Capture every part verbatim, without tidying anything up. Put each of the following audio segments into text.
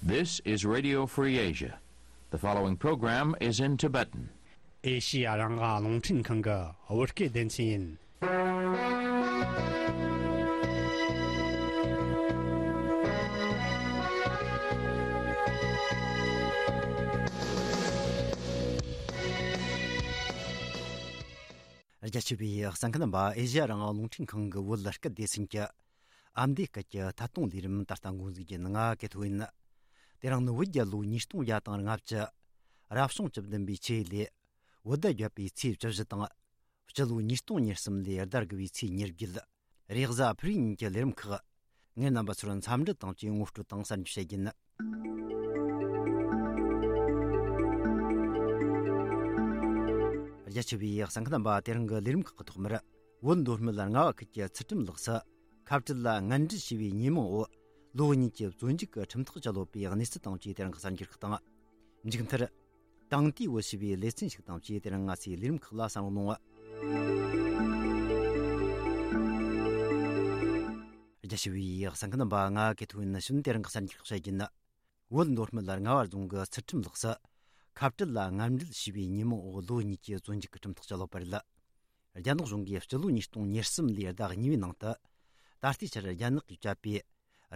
This is Radio Free Asia. The following program is in Tibetan. ཨེ་ཤི་ཡ་རང་དབང་རླུང་འཕྲིན་ཁང་གི་བོད་སྐད་སྡེ་ཚན་ཡིན། རྒྱ་ཆེ་བའི་གསན་མཁན་རྣམ་པ། ཨེ་ཤི་ཡ་རང་དབང་རླུང་འཕྲིན་ཁང་གི་བོད་སྐད་སྡེ་ཚན་གྱི་ཨ་མདོའི་སྐད་ཀྱི་ཐད་གཏོང་ལས་རིམ་ད་ལྟ་འགོ་འཛུགས་རྒྱུ་ཡིན། ང་གི་ཐོ་ཡིན། དེ་རིང་ནི་བོད་རྒྱལ་ལོ་ཉིས་སྟོང་བརྒྱ་དང་ལྔ་བཅུ། རབ་བྱུང་བཅུ་བདུན་པའི་ཆུ་ཡོས་ལོའི་བོད་ཟླ་བརྒྱད་པའི་ཚེས་བཅུ་བཞི་དང་། སྤྱི་ལོ་ཉིས་སྟོང་ཉེར་གསུམ་ལོའི་ཟླ་དགུ་བའི་ཚེས་ཉེར་བརྒྱད། རེས་གཟའ་ཕུར་བུའི་ཉིན་གྱི་ལས་རིམ་ཁག་ངས་རྣམ་པ་ཚོར་འཚམས་འདྲི་དང་བཅས་ངོ་སྤྲོད་དང་གསར་འགྱུར་བཤད་རྒྱུ་ཡིན། རྒྱ་ཆེ་བའི་གསན་མཁན་རྣམ་པ། དེ་རིང་གི་ལས་རིམ་ཁག་གི་ཐོག་མར། བོད་མདོ་སྨད་རྔ་བ་ཁུལ་གྱི་ཚུལ་ཁྲིམས་ལགས་སུ་ཁ་བྲལ་ལ་ངན་འབྲེལ་བྱས་པའི་ཉེས་མིང་འོག་ལོ་གཉིས་ཀྱི་བཙོན་འཇུག་གི་ཁྲིམས་ཐག་བཅད་ཡོད་པའི་གནས་ཚུལ་དང་བཅས་དེ་རིང་གི་གསར་འགྱུར་ཁག་དང་། མཇུག་མཐར། དེང་དུས་བོད་ཞེས་པའི་ལེ་ཚན་ཞིག་དང་བཅས་དེ་རིང་ང་ཚོའི་ལས་རིམ་ཁག་ལ་གསན་རོགས་གནང་། རྒྱ་ཆེ་བའི་གསན་མཁན་རྣམ་པ། ང་གི་ཐོ་ཡིན། ནི་ཤུན་དེ་རིང་གི་གསར་འགྱུར་ཁག་བཤད་རྒྱུ་ཡིན། བོད་མདོ་སྨད་རྔ་བ་རྫོང་གི་ཚུལ་ཁྲིམས་ལགས་སུ་ཁ་བྲལ་ལ་ངན་འབྲེལ་བྱས་པའི་ཉེས་མིང་འོག་ལོ་གཉིས་ཀྱི་བཙོན་འཇུག་གི་ཁྲིམས་ཐག་བཅད་ཡོད་པ་རེད། རྒྱ་ནག་གཞུང་གིས་སྤྱི་ལོ་ཉིས་སྟོང་ཉེར་གསུམ་ལོའི་ཟླ་གཉིས་པའི་ནང་དུ། ད་ལྟའི་ཆར་རྒྱ་ནག་གིས་བཅད་པའི་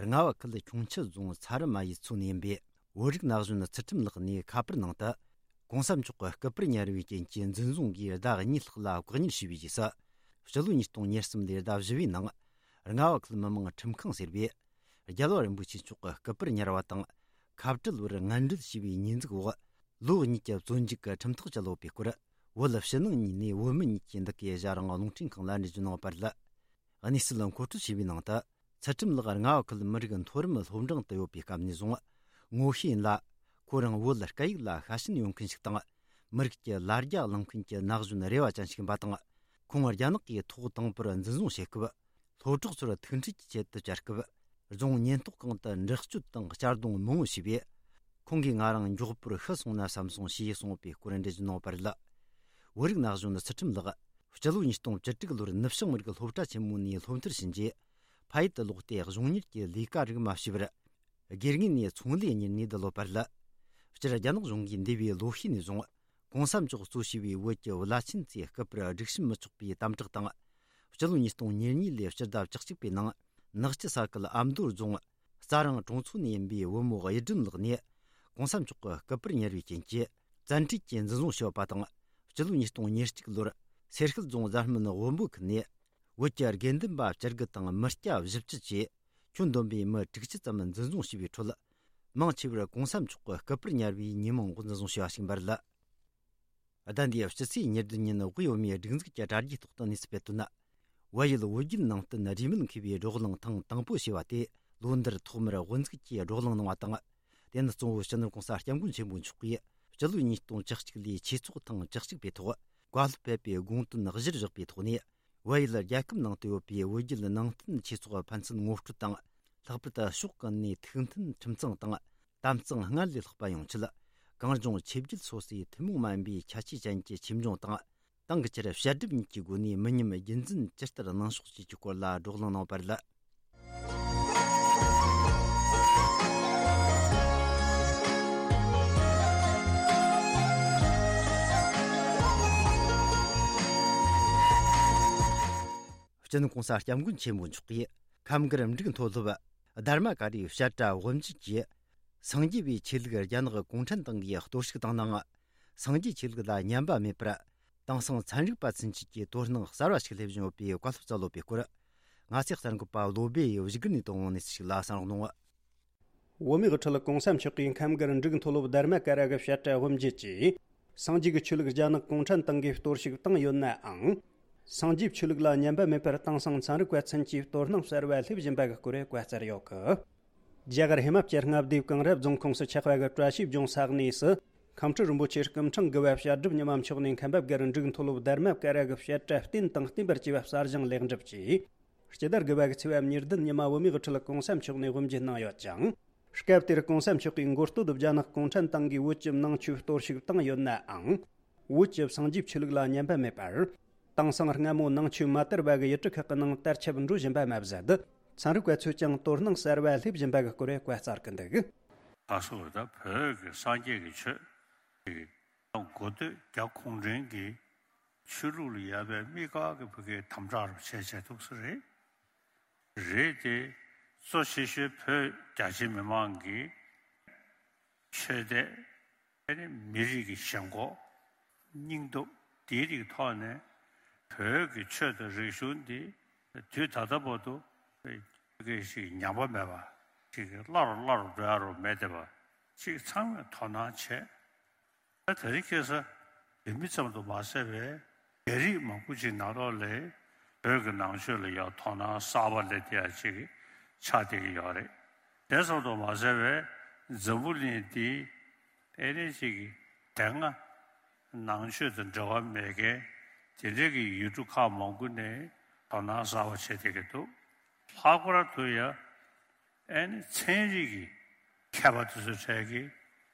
རྔ་བ་ཁུལ་ཁྱུང་མཆུ་རྫོང་ཚ་རུ་མ་ཡུལ་ཚོ་ནས་ཡིན་པའི་བོད་རིགས་ན་གཞོན་ཚུལ་ཁྲིམས་ལགས་ནས་ཁ་པར་ནང་དུ། གོང་ས་མཆོག་གི་སྐུ་པར་ཉར་བའི་རྐྱེན་གྱིས་འཛིན་བཟུང་གིས་ཟླ་གཉིས་ལྷག་ལ་བཀག་ཉར་བྱས་པའི་རྗེས་སུ། སྤྱི་ལོ་ཉིས་སྟོང་ཉེར་གསུམ་ལོའི་ཟླ་བཞི་པའི་ནང་། རྔ་བ་ཁུལ་མི་དམངས་ཁྲིམས་ཁང་ཟེར་བས། རྒྱལ་བ་རིན་པོ་ཆེ་མཆོག་གི་སྐུ་པར་ཉར་བ་དང་། ཁ་བྲལ་བར་ངན་འབྲེལ་བྱས་པའི་ཉེས་འཛུགས་འོག་ལོ་གཉིས་ཀྱི་བཙོན་འཇུག་གི་ཁྲིམས་ཐག་བཅད་ཡོད་པའི་སྐོར། བོད་ཕྱི་ནང་གཉིས་ནས་བོད་མི་གཉིས་ཀྱིས་འདི་གའི་ཨེ་ཤ་ཡ་རང་དབང་རླུང་འཕྲིན་ཁང་ལ་འགྲེལ་བརྗོད་གནང་བ་རེད། གནས་ཚུལ་མཁོ་སྤྲོད་བྱས་པའི་ནང་དུ། ཚུལ་ཁྲིམས་ལགས་རྔ་བ་ཁུལ་མི་རིགས་མཐོ་རིམ་སློབ་འབྲིང་དུ་ཡོད་པའི་སྐབས་ནས་བཟུང་ངོ་ཤེས་ཡིན་ལ། ཁོ་རང་བོད་སྐད་ཡིག་ལ་ཤ་ཞེན་ཡོད་མཁན་ཞིག་དང་། མི་རིགས་ཀྱི་ལ་རྒྱ་བླངས་མཁན་གྱི་ན་གཞོན་རེ་བ་ཅན་ཞིག་ཡིན་པ་དང་། ཁོང་རྒྱ་ནག་གིས་ཐོག་དང་པོར་འཛིན་བཟུང་བྱེད་སྐབས། སློབ་གྲོགས་ཚོར་ཐུག་འཕྲད་ཀྱི་ཆེད་དུ་བཅར་སྐབས། རྫོང་ཉེན་རྟོག་ཁང་དུ་འདྲི་གཅོད་དང་གཅར་རྡུང་མང་བོ་བྱས་པས། ཁོང་གིས་ང་རང་མགྱོགས་པོར་ཤི་སོང་ན་བསམ་སོང་ཞེས་གསུངས་པའི་སྐོར་འགྲེལ་བརྗོད་གནང་བ་རེད། བོད་རིགས་ན་གཞོན་ཚུལ་ཁྲིམས་ལགས། སྤྱི་ལོ་ཉིས་སྟོང་བཅུ་དྲུག་ལོར་ནུབ་བྱང་མི་རིགས་སློབ་གྲྭ་ཆེན་མོ་ནས་སློབ་མཐར་ཕྱིན་རྗེས། ཕ་ཡུལ་དུ་ལོག་སྟེ་གཞུང་གཉེར་གྱི་ལས་ཀ་རིགས་མ་བྱས་པར། སྒེར་ངོས་ནས་ཚོང་ལས་གཉེར་ནས་བསྡད་ཡོད་པ་རེད། སྤྱིར་རྒྱ་ནག་གཞུང་གིས་འདས་པའི་ལོ་ཤས་ནས་བཟུང་། གོང་ས་མཆོག་གཙོ་བྱས་པའི་བོད་ཀྱི་བླ་ཆེན་ཚོའི་སྐུ་པར་སྒྲིག་ཞིབ་མི་ཆོག་པའི་དམ་དྲག་དང་། སྤྱི་ལོ་ཉིས་སྟོང་ཉེར་གཉིས་ལོའི་སྤྱི་ཟླ་བཅུ་གཅིག་པའི་ནང་། ནག་ཆུ་ས་ཁུལ་ཨ་མདོ་རྫོང་རྩ་རང་གྲོང་ཚོ་ནས་ཡིན་པའི་བུ་མོ་གཡུ་སྒྲོན་ལགས་ནས། གོང་ས་མཆོག་གི་སྐུ་པར་ཉར་བའི་རྐྱེན་གྱིས་བཙན་ཁྲིད་ཀྱིས་འཛིན་བཟུང་བྱས་པ་དང་། སྤྱི་ལོ་ཉིས་སྟོང་ཉེར་གཅིག་ལོར་སེར་ཤུལ་རྫོང་གཟའ་སྨན་དབོན་པོ་ཁུལ་ནས། བོད་ཀྱི་དགེ་འདུན་པ་བཅུ་དགུ་དང་མི་སྐྱ་བཞི་བཅུ་བཅས་ཁྱོན་བསྡོམས་པའི་མི་དྲུག་ཅུ་ཙམ་འཛིན་བཟུང་བྱས་པའི་ཁྲོད། མང་ཆེ་བར་གོང་ས་མཆོག་གི་སྐུ་པར་ཉར་བའི་ཉེས་མིང་འོག་འཛིན་བཟུང་བྱས་པ་ཞིག་ཡིན་པ་རེད། ཟླ་འདིའི་སྤྱི་ཚེས་ཉེར་བདུན་ཉིན་དབུས་བོད་མིའི་སྒྲིག་འཛུགས་ཀྱི་དྲ་རྒྱའི་ཐོག་ཏུ་གནས་ཚུལ་སྤེལ་དོན། བལ་ཡུལ་བོད་བརྒྱུད་ནང་བསྟན་རིས་མེད་མཁས་པའི་བགྲོ་གླེང་ཐེངས་དང་པོ་ཞེས་པ་དེ་ལོ་འདིར་ཐོག་མར་དབུ་འཛུགས་ཀྱིས་བགྲོ་གླེང་གནང་བ་དང་། དེ་ནི་གཙོ་བོ་སྤྱི་ནོར་གོང་ས་སྐྱབས་མགོན་ཆེན་པོ་མཆོག་གིས་སྤྱི་ལོ་ཉིས་སྟོང་བཅུ་གཅིག་ལོའི་ཆོས་ཚོགས་ཐེངས་བཅུ་གཅིག་པའི་ཐོག་བཀའ་སློབ་ཕེབས་པའི་དགོངས་དོན་གཞིར་བཞག་པའི་ཐོག་ནས། བལ་ཡུལ་རྒྱལ་ཁབ་ནང་དུ་ཡོད་པའི་བོད་བརྒྱུད་ནང་བསྟན་ཆོས་ཚོགས་ཕན་ཚུན་ངོ་སྤྲོད་དང་། ལྷག་པར་དུ་ཕྱོགས་ཀུན་ནས་ཐུགས་མཐུན་ཁྲིམས་གཙང་དང་། དམ་གཙང་སྔར་ལས་ལྷག་པ་ཡོང་ཆེད། གངས་ལྗོངས་ཆོས་བརྒྱུད་སོ་སོའི་ཐུན་མོང་མ་ཡིན་པའི་ཁྱད་ཆོས་ཅན་གྱི་ཆོས་འབྱུང་དང་། ཏང་གི་ཆེད་དུ་བཤད་སྒྲུབ་གཉིས་ཀྱི་སྒོ་ནས་མི་ཉམས་རྒྱུན་འཛིན་ཇི་ལྟར་གནང་ཕྱོགས་བཅས་ཀྱི་སྐོར་ལ་བགྲོ་གླེང་གནང་བ་རེད། སྤྱི་ནོར་གོང་ས་སྐྱབས་མགོན་ཆེན་པོ་མཆོག་གིས་ཁམས་སྒར་འབྲུག་མཐོ་སློབ་དྷརྨ་ཀ་རའི་བཤད་གྲྭ་དབུ་འབྱེད་ཀྱིས། སངས་རྒྱས་པའི་ཆོས་ལུགས་རྒྱ་ནག་གུང་ཁྲན་ཏང་གིས་གཏོར་བཤིག་བཏང་ནའང་། སངས་རྒྱས་ཆོས་ལུགས་ལ་ཉམས་པ་མེད་པར། དེང་སང་ཚན་རིག་པ་ཚུན་ཆད་ཀྱིས་དོ་སྣང་གསར་བ་ཞིག་སླེབས་བཞིན་ཡོད་པའི་བཀའ་སློབ་སྩལ་ཡོད་པའི་སྐོར། ང་ཚོའི་གསར་འགོད་པ་བློ་སྦེ་ཡིས་བཞུགས་སྒར་ནས་བཏང་བའི་གནས་ཚུལ་ཞིག་ལ་གསན་རོགས་གནང་། བོད་མིའི་དབུ་ཁྲིད་གོང་ས་མཆོག་གིས་ཁམས་སྒར་འབྲུག་མཐོ་སློབ་དྷརྨ་ཀ་ར་གི་བཤད་གྲྭ་དབུ་འབྱེད་ཀྱིས། སངས་རྒྱས་ཀྱི་ཆོས་ལུགས་རྒྱ་ནག་གུང་ཁྲན་ཏང་གིས་གཏོར་བཤིག་བཏང་ཡོད་ནའང་། སངས་རྒྱས་ཆོས་ལུགས་ལ་ཉམས་པ་མེད་པར་དེང་སང་ཚན་རིག་པ་ཚུན་ཆད་དོ་སྣང་གསར་བ་སླེབས་བཞིན་པ་གི་སྐོར་བཀའ་སྩལ་ཡོད་གི། རྒྱ་གར་ཧི་མ་ཅལ་མངའ་སྡེའི་གངས་རི་རྫོང་ཁོངས་སུ་ཆགས་པ་གི་བཀྲ་ཤིས་ལྗོངས་ས་གནས་སུ། ཁམས་སྤྲུལ་རིན་པོ་ཆེ་སྐུ་ཕྲེང་དགུ་བ་བཤད་སྒྲུབ་ཉི་མ་མཆོག་ནས་མཁན་པ་སྒར་འབྲུག་མཐོ་སློབ་དྷརྨ་ཀ་ར་གི་བཤད་གྲྭ་བསྟན་དང་བསྟན་པར་བཅས་པ་གསར་བཞེངས་ལེགས་འགྲུབ་ཀྱིས། སྤྱི་ཟླ་དགུ་བ་གི་ཚེས་པ་ཉེར་བདུན་ཉི་མ་བོད་མིའི་དབུ་ཁྲིད་གོང་ས་མཆོག་ནས་དབུ་འབྱེད་གནང་ཡོད་ཅིང་། སྐབས་དེར་གོང་ས་མཆོག་གིས་མགོ་སྟོད་དུ་རྒྱ་ནག་གུང་ཁྲན་ཏང་གིས་བོད་ཀྱི་ནང་ཆོས་གཏོར་བཤིག་བཏང་ཡོད་ནའང་། བོད་ཀྱི་སངས་རྒྱས་ཆོས་ལུགས་ལ་ཉམས་པ་མེད་པར། དེང་སང་སྔ་མོ་ནང་ཆོས་མ་དར་བ་གི་ཡུལ་གྲུ་ཁག་གི་ནང་དར་ཁྱབ་འགྲོ་བཞིན་པ་མ་ཟད། ཚན་རིག་པ་ཚོས་ཀྱང་དོ་སྣང་གསར་བ་སླེབས་བཞིན་པ་གི་སྐོར་བཀའ་སྩལ་གི་འདུག། ག་སོགས་ད་བོད་ཀྱི་སངས་རྒྱས་ཀྱི་ཆོས་ཀྱི་གོ་ཐོས་རྒྱ་གུང་ཁྲན་གྱི་ཆོས་ལུགས་ལ་ཡོད་པའི་དམིགས་བཀར་གྱི་ཕ་གིའི་དམ་དྲག་རུ་བྱས་བྱས་འདུག་ས་རེད། རེད་དེ། གཙོ་ཆེ་ཤོས་བོད་རྒྱ་ཆེ་མི་མང་གི་ཆོས་དད། ཨ་ནི་མི་རིགས་ཀྱི་ཞེན་ཁོག་སྙིང་སྟོབས་དེའི་རིགས་ཐོག་ནས་བོད་ཀྱི་ཆོས་དང་རིག་གཞུང་འདི་དུས་ད་ལྟ་བར་དུ་སྐད་ཞིག་ཉམས་པ་མེད་པ་ཞིག་སླར་སླར་འགྲོ་ཡ་རུ་མེད་བསྡད་པ་ཞིག་ཚང་མས་དོ་སྣང་བྱས། ད་དེ་རིང་ཁ་སང་བོད་མི་ཙམ་དུ་མ་ཟད་པའི་རྒྱ་རིགས་མང་པོ་ཅིག་ནང་ལོགས་ལ་བོད་ཀྱི་ནང་ཆོས་ལ་ཡང་དོ་སྣང་གསར་པ་སླེབས་བསྡད་ཡ་ཅིག་ཆགས་བསྡད་ཀྱི་ཡོད་རེད། དེ་ཙམ་དུ་མ་ཟད་པའི་འཛམ་བུ་གླིང་འདིའི་ཨེ་ནི་ཅིག་དེ་སྔ་ནང་ཆོས་དང་འབྲེལ་བ་མེད་མཁན་དེ་འདྲའི་གི་ཡུལ་གྲུ་ཁག་མང་པོ་ནས་དོ་སྣང་གསར་པ་བྱེད་བསྡད་ཀྱི་འདུག་ལྷག་པར་དུ་ཡང་ཨེ་ནི་ཚན་རིག་གི་མཁས་པ་དེ་ཚོའི་གྲས་ཀྱིས་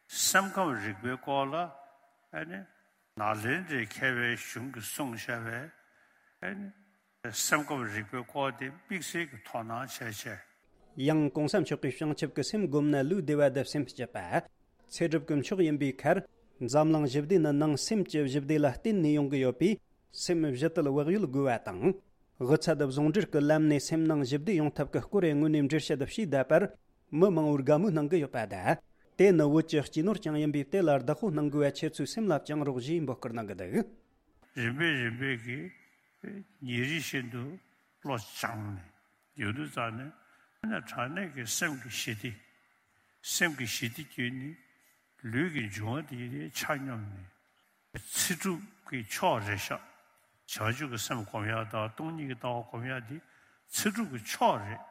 སེམས་ཁམས་རིག་པའི་སྐོར་ལ་ཨེ་ནི་ནཱ་ལེནྡྲའི་མཁས་པའི་གཞུང་གིས་གསུངས་བཞག་པའི་ཨེ་ནི་སེམས་ཁམས་རིག་པའི་སྐོར་དེ་དམིགས་བསལ་གྱི་དོ་སྣང་བྱས་བྱས། ཡང་གོང་ས་མཆོག་གིས་བྱང་ཆུབ་ཀྱི་སེམས་བསྒོམས་ན་ལུས་བདེ་བ་དང་སེམས་སྐྱིད་པ། ཚེ་སྒྲུབ་ཀྱི་མཆོག་ཡིན་པའི་ཁར། འཛམ་གླིང་ཞི་བདེ་ནི་ནང་སེམས་ཀྱི་ཞི་བདེ་ལ་བརྟེན་ནས་ཡོང་གི་ཡོད་པས། སེམས་ཞི་བདེ་བག་ཡོད་དགོས་པ་དང་། དབུ་ཚད་བཟུང་འབྲེལ་གྱི་ལམ་ནས་སེམས་ནང་ཞི་བདེ་ཡོང་ཐབས་ཀྱི་སྐོར་དངོས་གནས་འགྲེལ་བཤད་བྱས་བསྡད་པར། མི་མང་པོར་དགའ་མོས་གནང་གི་ཡོད་པ་དང་། དེ་ནི་བོད་ཀྱི་སྐྱེས་ནོར་ཀྱང་ཡིན་པས། དེ་ལ་བདག་པོ་གནང་དགོས་པ་ཁྱེད་ཚོའི་སེམས་ལ་བཅངས་རོགས་ཞེས་འབོད་སྐུལ་གནང་གི་འདུག་རིམ་པས་རིམ་པས་ཀྱིས་ཉིན་རེ་བཞིན་དུ་བློ་སྦྱངས་ནས་ཡོང་དུས་ཙམ་ནས་ཨ་ནི་དྲང་གནས་ཀྱི་སེམས་ཀྱི་ཞི་བདེ། སེམས་ཀྱི་ཞི་བདེ་བརྒྱུད་ནས་ལུས་ཀྱི་འབྱུང་བ་དེ་ཆ་སྙོམས་ནས་ཚེ་སྒྲུབ་ཀྱི་མཆོག་རེད་ཤག་བྱང་ཆུབ་ཀྱི་སེམས་སྒོམ་ཡག་དང་སྟོང་ཉིད་ཀྱི་ལྟ་བ་སྒོམ་ཡག་འདི་ཚེ་སྒྲུབ་ཀྱི་མཆོག་རེད།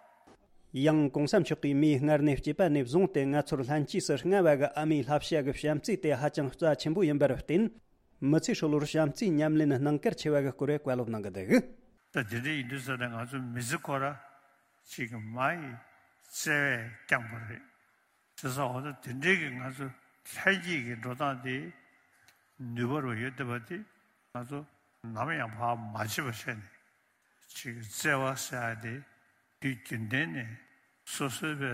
ཡང་གོང་ས་མཆོག་གིས་མིའི་སྔར་ནས་སྐྱེས་པ་ནས་བཟུང་སྟེ་ང་ཚོར་ལྷན་སྐྱེས་སུ་མངའ་བ་གི་ཨ་མའི་བསླབ་བྱ་གི་བྱམས་བརྩེ་དེ་ཧ་ཅང་རྩ་ཆེན་པོ་ཡིན་པར་བརྟེན། མི་ཚེ་ཧྲིལ་བོར་བྱམས་བརྩེའི་ཉམས་ལེན་གནང་གལ་ཆེ་བ་གི་སྐོར་བཀའ་སློབ་གནང་གི་འདུག་ད་དེ་འདྲ་ཡིན་དུས་ཙམ་ནས་ང་ཚོ་མི་ཚེ་ཁོ་ར་ཅིག་མ་ཡི་བརྩེ་བས་བསྐྱངས་པ་རེད། བྱས་ཙང་འོ་ན་དེ་འདྲའི་གི་ང་ཚོ་ལྷན་སྐྱེས་ཀྱི་འགྲོ་སྟངས་དེ་ནུས་པ་རུ་ཡོད་བསྡད་པ་དེ་ང་ཚོ་ནམ་ཡང་བར་མ་ཆད་པ་བྱས་ནས། ཅིག་བརྩེ་བ་ཟེར་ཡ་དེ་དུས་རྒྱུན་ལྡན་ནས་སོ་སོའི་བའི་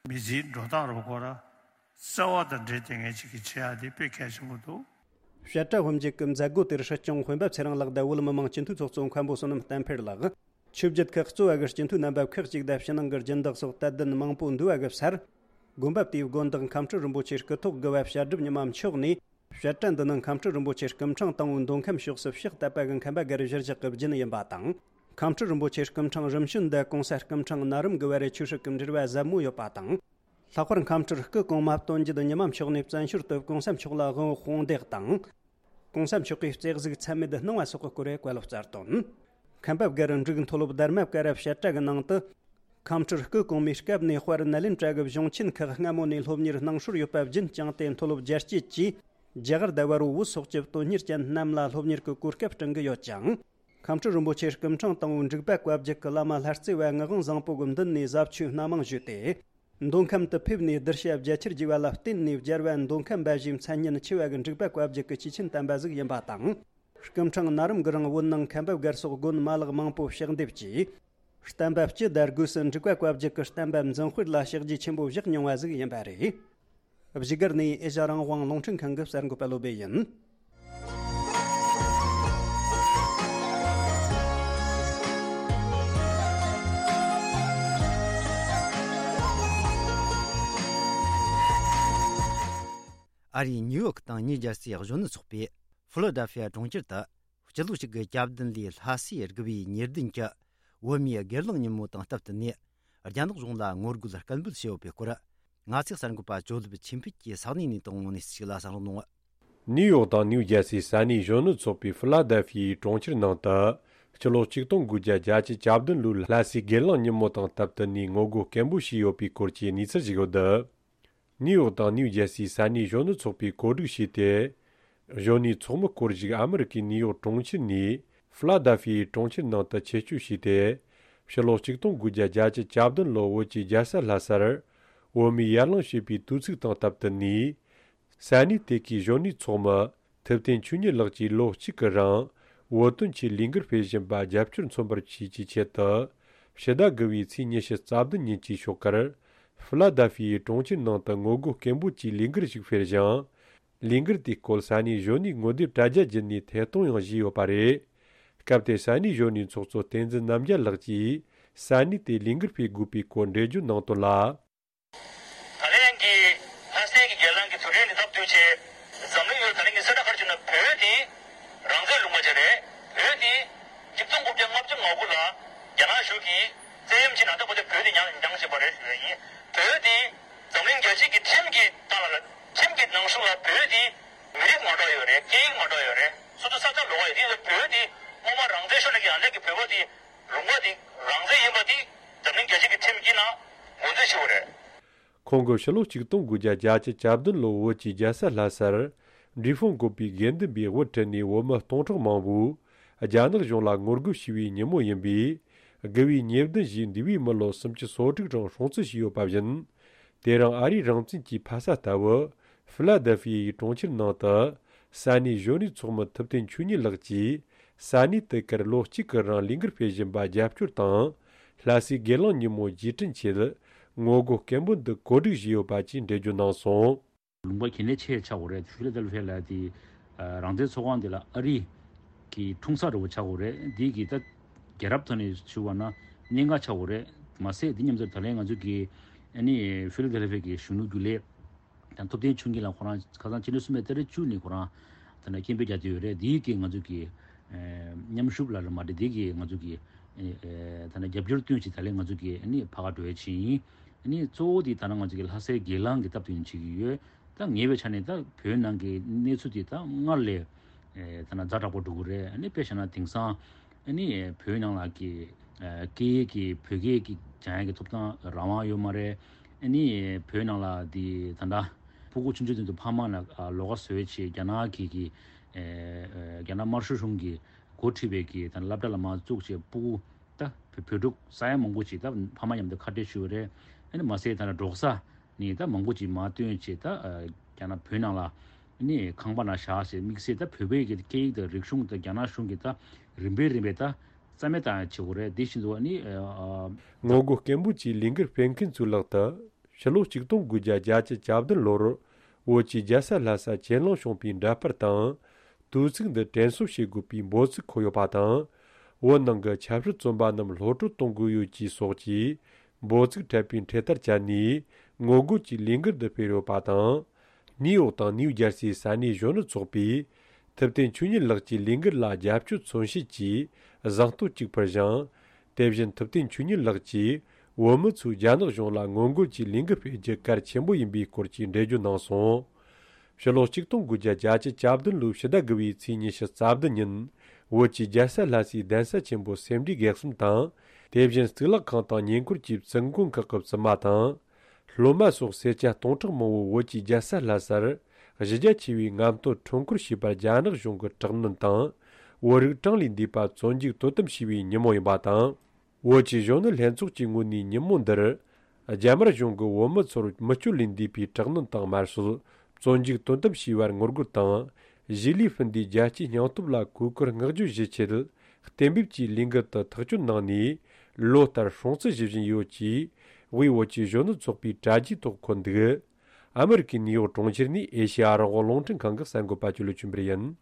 མི་ཚེའི་འགྲོ་སྟངས་རུ་ཁོ་ར་བརྩེ་བ་དང་འབྲེལ་ཏེ་ངས་ཅིག་གི་བྱེད་ཡ་དེ་དཔེ་གལ་ཆེན་པོ་འདུག་བཤད་གྲྭ་དབུ་འབྱེད་ཀྱི་མཛད་སྒོ་དེར་སྲིད་སྐྱོང་སྤེན་པ་ཚེ་རིང་ལགས་དང་བོད་མི་མང་སྤྱི་འཐུས་ཚོགས་གཙོ་མཁན་པོ་བསོད་ནམས་བསྟན་འཕེལ་ལགས། ཆོས་བརྒྱུད་ཁག་གཙོ་བ་གི་སྤྱི་འཐུས་རྣམ་པ་ཁག་ཅིག་དང་ཕྱི་ནང་གི་སྦྱིན་བདག་སོགས་དད་ལྡན་མང་པོ་འདུ་བ་གི་སར། དགོན་པ་དེའི་དགོན་བདག་མཁན་སྤྲུལ་རིན་པོ་ཆེ་སྐུ་ཐོག་དགུ་བ་བཤད་སྒྲུབ་ཉི་མ་མཆོག་ནས། བཤད་གྲྭ་འདི་ནི་མཁན་སྤྲུལ་རིན་པོ་ཆེ་སྐུ་ཕྲེང་དང་པོའི་མདོ་ཁམས་ཕྱོགས་སུ་ཕྱག་བཏབ་པ་གི་མཁན་པ་སྒར་གཞིར་བཞག་གི་རྒྱུན་ཡིན་པ་དང་། མཁན་སྤྲུལ་རིན་པོ་ཆེ་སྐུ་ཕྲེང་རིམ་བྱོན་འདི་གོང་ས་སྐུ་ཕྲེང་ན་རིམ་དགུ་བ་རེ་ཆོས་སྲིད་ཀྱི་འབྲེལ་བ་ཟབ་མོ་ཡོད་པ་དང་། ལྷག་པར་མཁན་སྤྲུལ་སྐུ་གོང་མ་དོན་བརྒྱུད་ཉི་མ་མཆོག་ནས་བཙན་བྱོལ་དུ་གོང་ས་མཆོག་ལ་དབང་པོ་དཔུང་འདེགས་དང་། གོང་ས་མཆོག་གིས་བརྩེ་གཟུགས་ཚད་མེད་གནང་བ་སོགས་ཀྱི་སྐོར་བཀའ་སློབ་སྩལ་དོན། མཁན་པ་སྒར་འབྲུག་མཐོ་སློབ་དྷརྨ་ཀ་ར་བཤད་གྲྭ་གི་ནང་དུ། མཁན་སྤྲུལ་སྐུ་གོང་མའི་སྐབས་ནས་དཔལ་ནཱ་ལེནྡྲ་གི་གཞུང་ཆེན་ཁག་སྔ་མོ་ནས་སློབ་གཉེར་གནང་སྲོལ་ཡོད་པ་བརྒྱུད་བསྐྱངས་ཏེ། མཐོ་སློབ་རྒྱ་བསྐྱེད་ཀྱིས་རྒྱ་གར་དང་བལ་པོ་བོད་སོགས་ཀྱི་དོན་གཉེར་ཅན་རྣམས་ལ་སློབ་གཉེར་གྱི་གོ་སྐབས་བསྐྲུན་གྱི་ཡོད་ཅིང་། མཁན་སྤྲུལ་རིན་པོ་ཆེ་སྐུ་ཕྲེང་དང་པོའི་འབྲུག་པ་བཀའ་བརྒྱུད་ཀྱི་བླ་མ་ལྷ་རྩེ་བ་ངག་དབང་བཟང་པོ་གི་མདུན་ནས་ཟབ་ཆོས་སྣ་མང་ཞུས་ཏེ། མདོ་ཁམས་དུ་ཕེབས་ནས་གདུལ་བྱ་རྒྱ་ཆེར་རྒྱས་པ་ལ་བརྟེན་ནས། རྒྱལ་བ་མདོ་ཁམས་པ་ཞེས་མཚན་སྙན་ཆེ་བ་གི་འབྲུག་པ་བཀའ་བརྒྱུད་ཀྱི་སྐྱེས་ཆེན་དམ་པ་ཟིག་ཡིན་པ་དང་། སྐུ་ཕྲེང་ན་རིམ་གྱི་རིང་བོད་ནང་མཁན་པ་སྒར་སོགས་དགོན་མ་ལག་མང་པོ་ཕྱག་འདེབས་ཀྱིས། བསྟན་པ་སྤྱི་དང་སྒོས་སུ་འབྲུག་པ་བཀའ་བརྒྱུད་ཀྱི་བསྟན་པ་འཛིན་སྤེལ་ལ་ཕྱག་རྗེས་ཆེན་པོ་བཞག་མྱོང་བ་ཟིག་ཡིན་པ་རེད། བཞུགས་སྒར་ནས་ཨེ་ཤ་རང་དབང་རླུང་འཕྲིན་ཁང་གི་གསར་འགོད་པ་བློ་བྷེ་ཡིན། ཨ་རིའི་ནིའུ་ཡོག་དང་ནིའུ་ཇར་སིའི་གཞོན་ནུ་ཚོགས་པས་ཧྥི་ལ་ཌེལ་ཧྥི་ཡ་གྲོང་ཁྱེར་དུ། སྤྱི་ལོ་གཅིག་གི་གྱ་བདུན་ལོའི་ལྷ་སའི་དགུ་བའི་ཉེར་བདུན་གྱི་བོད་མིའི་སྒེར་ལངས་ཉིན་མོ་དང་སྟབས་བསྟུན་ནས། རྒྱ་ནག་གཞུང་ལ་ངོ་རྒོལ་སྐད་འབོད་བྱས་ཡོད་པའི་སྐོར། ང་ཚོའི་གསར་འགོད་པ་ཇོ་ལིབ་ཆོས་འཕེལ་གྱིས་ས་གནས་ནས་དང་པོ་ནས་གཅིག་ལ་གསན་རོགས་གནང་། ནིའུ་ཡོག་དང་ནིའུ་ཇར་སིའི་ས་གནས་གཞོན་ནུ་ཚོགས་པས་ཧྥི་ལ་ཌེལ་ཧྥི་ཡའི་གྲོང་ཁྱེར་ནང་དུ། སྤྱི་ལོ་གཅིག་སྟོང་དགུ་བརྒྱ་བརྒྱད་ཅུ་གྱ་བདུན་ལོའི་ལྷ་སའི་སྒེར་ལངས་ཉིན་མོ་དང་སྟབས་བསྟུན་ནས་ངོ་རྒོལ་སྐད་འབོད་བྱས་ཡོད་པའི་སྐོར་གྱི་གནས་ཚུལ་ཞིག་ཡོད་འདུག་ནིའུ་ཡོག་དང་ནིའུ་ཇར་སིའི་ས་གནས་གཞོན་ནུ་ཚོགས་པས་གོ་སྒྲིག་བྱས་ཏེ། གཞོན་ནུའི་ཚོགས་མི་སྐོར་ཞིག་ཨ་མི་རི་ཀའི་ནིའུ་ཡོག་གྲོང་ཁྱེར་ནས་ཧྥི་ལ་ཌེལ་ཧྥི་ཡའི་གྲོང་ཁྱེར་ནང་དུ་ཆེད་བསྐྱོད་བྱས་ཏེ། ཕྱི་ལོ་གཅིག་སྟོང་དགུ་བརྒྱ་བརྒྱད་ཅུ་གྱ་བདུན་ལོ་བོད་ཀྱི་རྒྱལ་ས་ལྷ་སར་བོད་མིའི་ཡར་ལངས་བྱས་པའི་དུས་ཚིགས་དང་སྟབས་བསྟུན་ནས། ས་གནས་དེ་གའི་གཞོན་ནུའི་ཚོགས་མི་ཐུབ་བསྟན་ཆོས་ཉིད་ལགས་ཀྱིས་ལོ་གཅིག་གི་རིང་བོད་དོན་ཆེད་ལས་འགུལ་སྤེལ་བཞིན་པ་རྒྱབ་སྐྱོར་མཚོན་པར་བྱེད་ཀྱི་ཆེད་དུ། ཕྱི་ཟླ་དགུ་བའི་ཚེས་ཉི་ཤུ་རྩ་བདུན་ཉིན་གྱི་ཞོགས་ཀར། ཧྥི་ལ་དཱ་ཧྥི་ཡའི་གྲོང་ཁྱེར་ནང་དུ་ངོ་རྒོལ་སྐད་འབོད་ཀྱི་ལས་འགུལ་ཞིག་སྤེལ་ཞིང་། ལས་འགུལ་དེའི་སྐོར་ས་གནས་གཞོན་ནུའི་ངོ་དེབ་དྲ་རྒྱ་བརྒྱུད་ནས་ཐད་གཏོང་ཡང་བྱས་ཡོད་པ་རེད། སྐབས་དེར་ས་གནས་གཞོན་ནུའི་ཚོགས་གཙོ་བསྟན་འཛིན་རྣམ་རྒྱལ་ལགས་ཀྱིས་ས་གནས་དེར་ལས་འགུལ་སྤེལ་དགོས་པའི་སྐོར་འགྲེལ་བརྗོད་གནང་དོན་ལ། ད་ལན་གྱི་ལྷ་སའི་གི་སྒེར་ལངས་ཀྱི་དུས་དྲན་ནི་སྟབས་བསྟུན་ཆེད། འཛམ་གླིང་ཡུལ་ད་ལན་གྱི་གསལ་བསྒྲགས་ཁར་བྱུང་ན་བོད་དེ་རང་བཙན་ལུང་པ་ཅིག་རེད། བོད་དེ་ཆིག་སྟོང་དགུ་བརྒྱ་ལྔ་བཅུ་ང་དགུ་ལ་རྒྱ་ནག་གཞུང་གིས་བཙན་གཡེམ་བྱས་ནས་ད་ལྟ་བར་དུ་བོད་དེ་ཉར་ཉར་བཞིན་པ་རེད་ཞུ་ཡ་ཡིན། བོད་དེ་འཛམ་གླིང་རྒྱལ་སྤྱིའི་གི་ཁྲིམས་ཀྱི་སྟེང་ལ་ཁྲིམས་ཀྱི་ནང་གསུང་ལ་བོད་དེ་མི་རིགས་མ་འདྲ་ཡོད་རེད། སྐད་ཡིག་མ་འདྲ་ཡོད་རེད། སོ་སོ་ས་ཆ་ལོགས་ཡོད་དེ་བོད་དེ་སྔོན་མ་རང་བཙན་ཤོར་ནས་ཀྱི་ཡང་ནས་ཀྱི་བོད་པ་དེ་ལུང་པ་དེ་རང་བཙན་ཡིན་པ་དེ་འཛམ་གླིང་རྒྱལ་སྤྱི་གི་ཁྲིམས་ཀྱི་ནང་ངོས་འཛིན་ཞུ་བ་རེད། ཁོང་གིས་ཕྱི་ལོ་ཆིག་སྟོང་དགུ་བརྒྱ་བརྒྱད་ཅུ་གྱ་བདུན་ལོར་བོད་ཀྱི་རྒྱལ་ས་ལྷ་སར་འབྲས་སྤུངས་བཀོད་པའི་དགེ་འདུན་པས་དབུ་ཁྲིད་ནས་བོད་མི་སྟོང་ཕྲག་མང་པོས་རྒྱ་ནག་གཞུང་ལ་ངོ་རྒོལ་བྱས་པའི་ཉིན་མོ་ཡིན་པས། དགུ་པའི་ཉེར་བདུན་ཞེས་འདས་པའི་མི་ལོ་སུམ་ཅུ་སོ་དྲུག་རིང་སྲུང་བརྩི་བྱས་ཡོད་པ་བཞིན། དེ་རིང་ཨ་རིའི་རང་བཙན་གྱི་ཕ་ས་ལྟ་བུ་ཧྥི་ལ་དེལ་ཧྥི་ཡའི་གྲོང་ཁྱེར་ནང་དུ་ས་གནས་གཞོན་ནུའི་ཚོགས་མི་ཐུབ་བསྟན་ཆོས་ཉིད་ལགས་ཀྱིས། ས་གནས་དེ་གར་ལོ་གཅིག་གི་རིང་ལས་འགུལ་སྤེལ་བཞིན་པ་རྒྱབ་སྐྱོར་དང་། ལྷ་སའི་སྒེར་ལངས་ཉིན་མོ་རྗེས་དྲན་ཆེད་ངོ་རྒོལ་སྐད་འབོད་འདི་གོ་སྒྲིག་བྱས་ཡོད་པ་བཅས་འགྲེལ་བརྗོད་གནང་སོང་། ལུང་པ་གལ་གནད་ཆེ་ཆགས་ཡོད་རེད། ཧྥི་ལ་དེལ་ཧྥི་ཡ་ལ་དེ་རང་བཙན་ཚོགས་ཁང་དེ་ལ་ཨ་རི་གི་འཁྲུངས་ས་འདྲ་བོ་ཆགས་ཡོད་རེད། འདི་གི་ད་རྒྱལ་རབས་ཐོག་ནས་ཞུ་བ་ན་གནད་འགག་ཆགས་ཡོད་རེད། མ་ཟད་འདི་མཉམ་དུ་ད་ལན་ང་ཚོ་གི་ཨ་ནི་ཧྥི་ལ་དེལ་ཧྥི་ཡ་གི་གཞོན་ནུ་རྒྱུན་ལས། ད་ཐུབ་བསྟན་ཆོས་ཉིད་ལགས་ཁོ་རང་ཁ་སང་ཕྱི་ཟླ་གསུམ་པའི་ཏ་རིག་བཅུ་ནས་ཁོ་རང་ད་ནས་སྐད་འབོད་རྒྱག་བསྡད་ཡོད་རེད། འདིའི་གི་ང་ཚོ་གི་ཨེ་མཉམ་ཞུགས་ལ་རེད་མ་རེད། འདི་གི་ང་ཚོ་གི་ཨེ་ད་ནས་རྒྱབ་སྐྱོར་བཏོན་བྱས་ད་ལན་ང་ཚོ་གི་ཨ་ནི་ཕ་ག་འགྲོ་ཡ་ཆེད་ཡིན། ཨ་ནི་གཙོ་བོ་དེ་ད་ནང་ང་ཚོ་གི་ལྷ་སའི་སྒེར་ལངས་ཀྱི་སྟབས་བསྟུན་བྱེད་ཀྱི་ཡོད། ད་ངེས་པའི་ཆ་ནས་ད་བོད་ནང་གི་གནས་ཚུལ་དེ་ད་སྔར་ལས་ཨེ་ད་ནང་ཛ་དྲག་པོ་འགྲོ་གི་རེད། ཨ་ནི་དཔེ་བཞག་ན་དེང་སང་ཨ་ནི་བོད་ནང་ལ་གི་ཨ་སྐད་ཡིག་གི་བོད་སྐད་ཀྱི་སྦྱང་ཡག་གི་ཐོབ་ཐང་རང་དབང་ཡོད་མ་རེད། ཨ་ནི་བོད་ནང་ལ་དེ་ད་ལྟ་སྤུ་གུ་ཆུང་ཆུང་དེ་ཚོ་ཕ་མ་ལ་ཨ་ལོགས་ཀ་བཟོས་བྱས་རྒྱ་ནག་གི་གི་ཨ་ཨ་རྒྱ་ནག་དམར་ཤོག་གཞུང་གི་འགོ་ཁྲིད་པའི་གི་ད་སློབ་གྲྭ་ལ་མར་བཙུགས་བྱས་སྤུ་གུ་ད་བོད་བོད་ཕྲུག་ས་ཡ་མང་པོ་ཅིག་ད་ཕ་མ་མཉམ་དུ་ཁ་བྲལ་ཞུས་པ་རེད། ཨ་ནི་མ་ཟད་ད་ལྟ་འབྲོག་ས་ནས་ད་མང་པོ་ཅིག་མར་བཏོན་བྱས་ད་ཨ་རྒྱ་ནག་བོད་ནང་ལ་ཨ་ནི་ཁང་པ་ནང་བཞག་བྱས་དམིགས་བསལ་ད་བོད་པའི་གི་སྐད་ཡིག་དང་རིག་གཞུང་དང་རྒྱ་ནག་གཞུང་གི་ད་རིམ་པས་རིམ་པས་ད། རྩ་མེད་བཏང་ཡ་བྱེད་དགོས་རེད། དེ་བཞིན་དུ་ཨ་ནི་ཨ། ངོ་རྒོལ་སྐད་འབོད་ཀྱི་ལས་འགུལ་སྤེལ་མཁན་ཚོའི་ལག་ཏུ་ཕྱི་ལོ་ཆིག་སྟོང་དགུ་བརྒྱ་བརྒྱད་ཅུ་གྱ་བདུན་ལོར་བོད་ཀྱི་རྒྱལ་ས་ལྷ་ས་གྱེན་ལངས་བྱུང་བའི་འདྲ་པར་དང་། དུས་ཚིགས་འདི་དྲན་གསོ་བྱེད་དགོས་པའི་འབོད་ཚིག་འཁོད་ཡོད་པ་དང་། བོད་ནང་གི་ཆབ་སྲིད་བཙོན་པ་རྣམས་གློད་གྲོལ་གཏོང་དགོས་ཡོད་ཅེས་སོགས་ཀྱི་འབོད་ཚིག་འཕྲད་པའི་འཕྲེད་དར་བཅད་ནས་ངོ་རྒོལ་གྱི་ལས་འགུལ་འདི་སྤེལ་ཡོད་པ་དང་། ནིའུ་ཡོག་དང་ནིའུ་ཇར་སིའི་ས་གནས་གཞོན་ནུ་ཚོགས་པས། ཐུབ་བསྟན་ཆོས་ཉིད་ལགས་ཀྱི་ལས་འགུལ་ལ་རྒྱབ་སྐྱོར་མཚོན་བྱེད་ཀྱི་གཟེངས་བསྟོད་ཅིག་ཕུལ་ཞིང་། དེ་བཞིན་ཐུབ་བསྟན་ཆོས་ཉིད་ལགས་ཀྱིས་བོད་མི་ཚོས་རྒྱ་ནག་གཞུང་ལ་ངོ་རྒོལ་གྱི་ལས་འགུལ་སྤེལ་རྒྱུ་གལ་ཆེན་པོ་ཡིན་པའི་སྐོར་གྱི་འགྲེལ་བརྗོད་གནང་སོང་། ཕྱི་ལོ་ཆིག་སྟོང་དགུ་བརྒྱ་བརྒྱད་ཅུ་གྱ་བདུན་ལོའི་ཕྱི་ཟླ་དགུ་པའི་ཚེས་ཉི་ཤུ་རྩ་བདུན་ཉིན། བོད་ཀྱི་རྒྱལ་ས་ལྷ་སའི་གདན་ས་ཆེན་པོ་སེ་འབྲས་དགེ་གསུམ་དང་། དེ་བཞིན་གཙུག་ལག་ཁང་དང་ཉེ་འཁོར་གྱི་བཙུན་དགོན་ཁག་གི་བཙུན་མ་དང་། སློབ་མ་སོགས་སེར་སྐྱ་སྟོང་ཕྲག་མང་པོ་བོད་ཀྱི་རྒྱལ་ས་ལྷ་སར་གཞི་རྒྱ་ཆེ་བའི་རྔམ་སྟོན་ཁྲོམ་སྐོར་བྱས་པར་རྒྱ་ནག་གཞུང་གིས་དྲག་གནོན་དང་། བོད་རིགས་གྲངས་ལས་འདས་པ་བཙོན་འཇུག་དོ་དམ་བྱས་པའི་ཉིན་མོ་ཡིན་པ་དང་། བོད་ཀྱི་གཞོན་ནུ་ལྷན་ཚོགས་ཀྱི་ངོས་ནས་ཉིན་མོ་འདིར། རྒྱ་དམར་གཞུང་གིས་བོད་མི་ཚོར་མི་སྤྱོད་ལས་འདས་པའི་དྲག་གནོན་དང་དམར་གསོད། བཙོན་འཇུག་དོ་དམ་བྱས་པར་ངོ་རྒོལ་དང་། གཞིས་ལུས་སྤུན་ཟླའི་རྒྱལ་གཅེས་སྙིང་སྟོབས་ལ་གུས་བཀུར་བསྔགས་བརྗོད་ཞུ་ཆེད། གཏན་འབེབས་ཀྱི་ལས་འགུལ་དུ་ཐག་གཅོད་གནང་ནས། ལོ་ལྟར་སྲུང་བརྩི་ཞུ་བཞིན་ཡོད་ཅེས། དབུས་བོད་ཀྱི་གཞོན་ནུ་ཚོགས་པའི་དྲ་རྒྱའི་ཐོག་འཁོད་འདུག་ཨ་མི་རི་ཀའི་ནིའུ་ཡོག་གྲོང་ཁྱེར་ནས་ཨེ་ཤེ་ཡ་རང་དབང་རླུང་འཕྲིན་ཁང་གི་གསར་འགོད་པ་ཆོས་ལུགས་ཆོས་འཕེལ་ཡིན།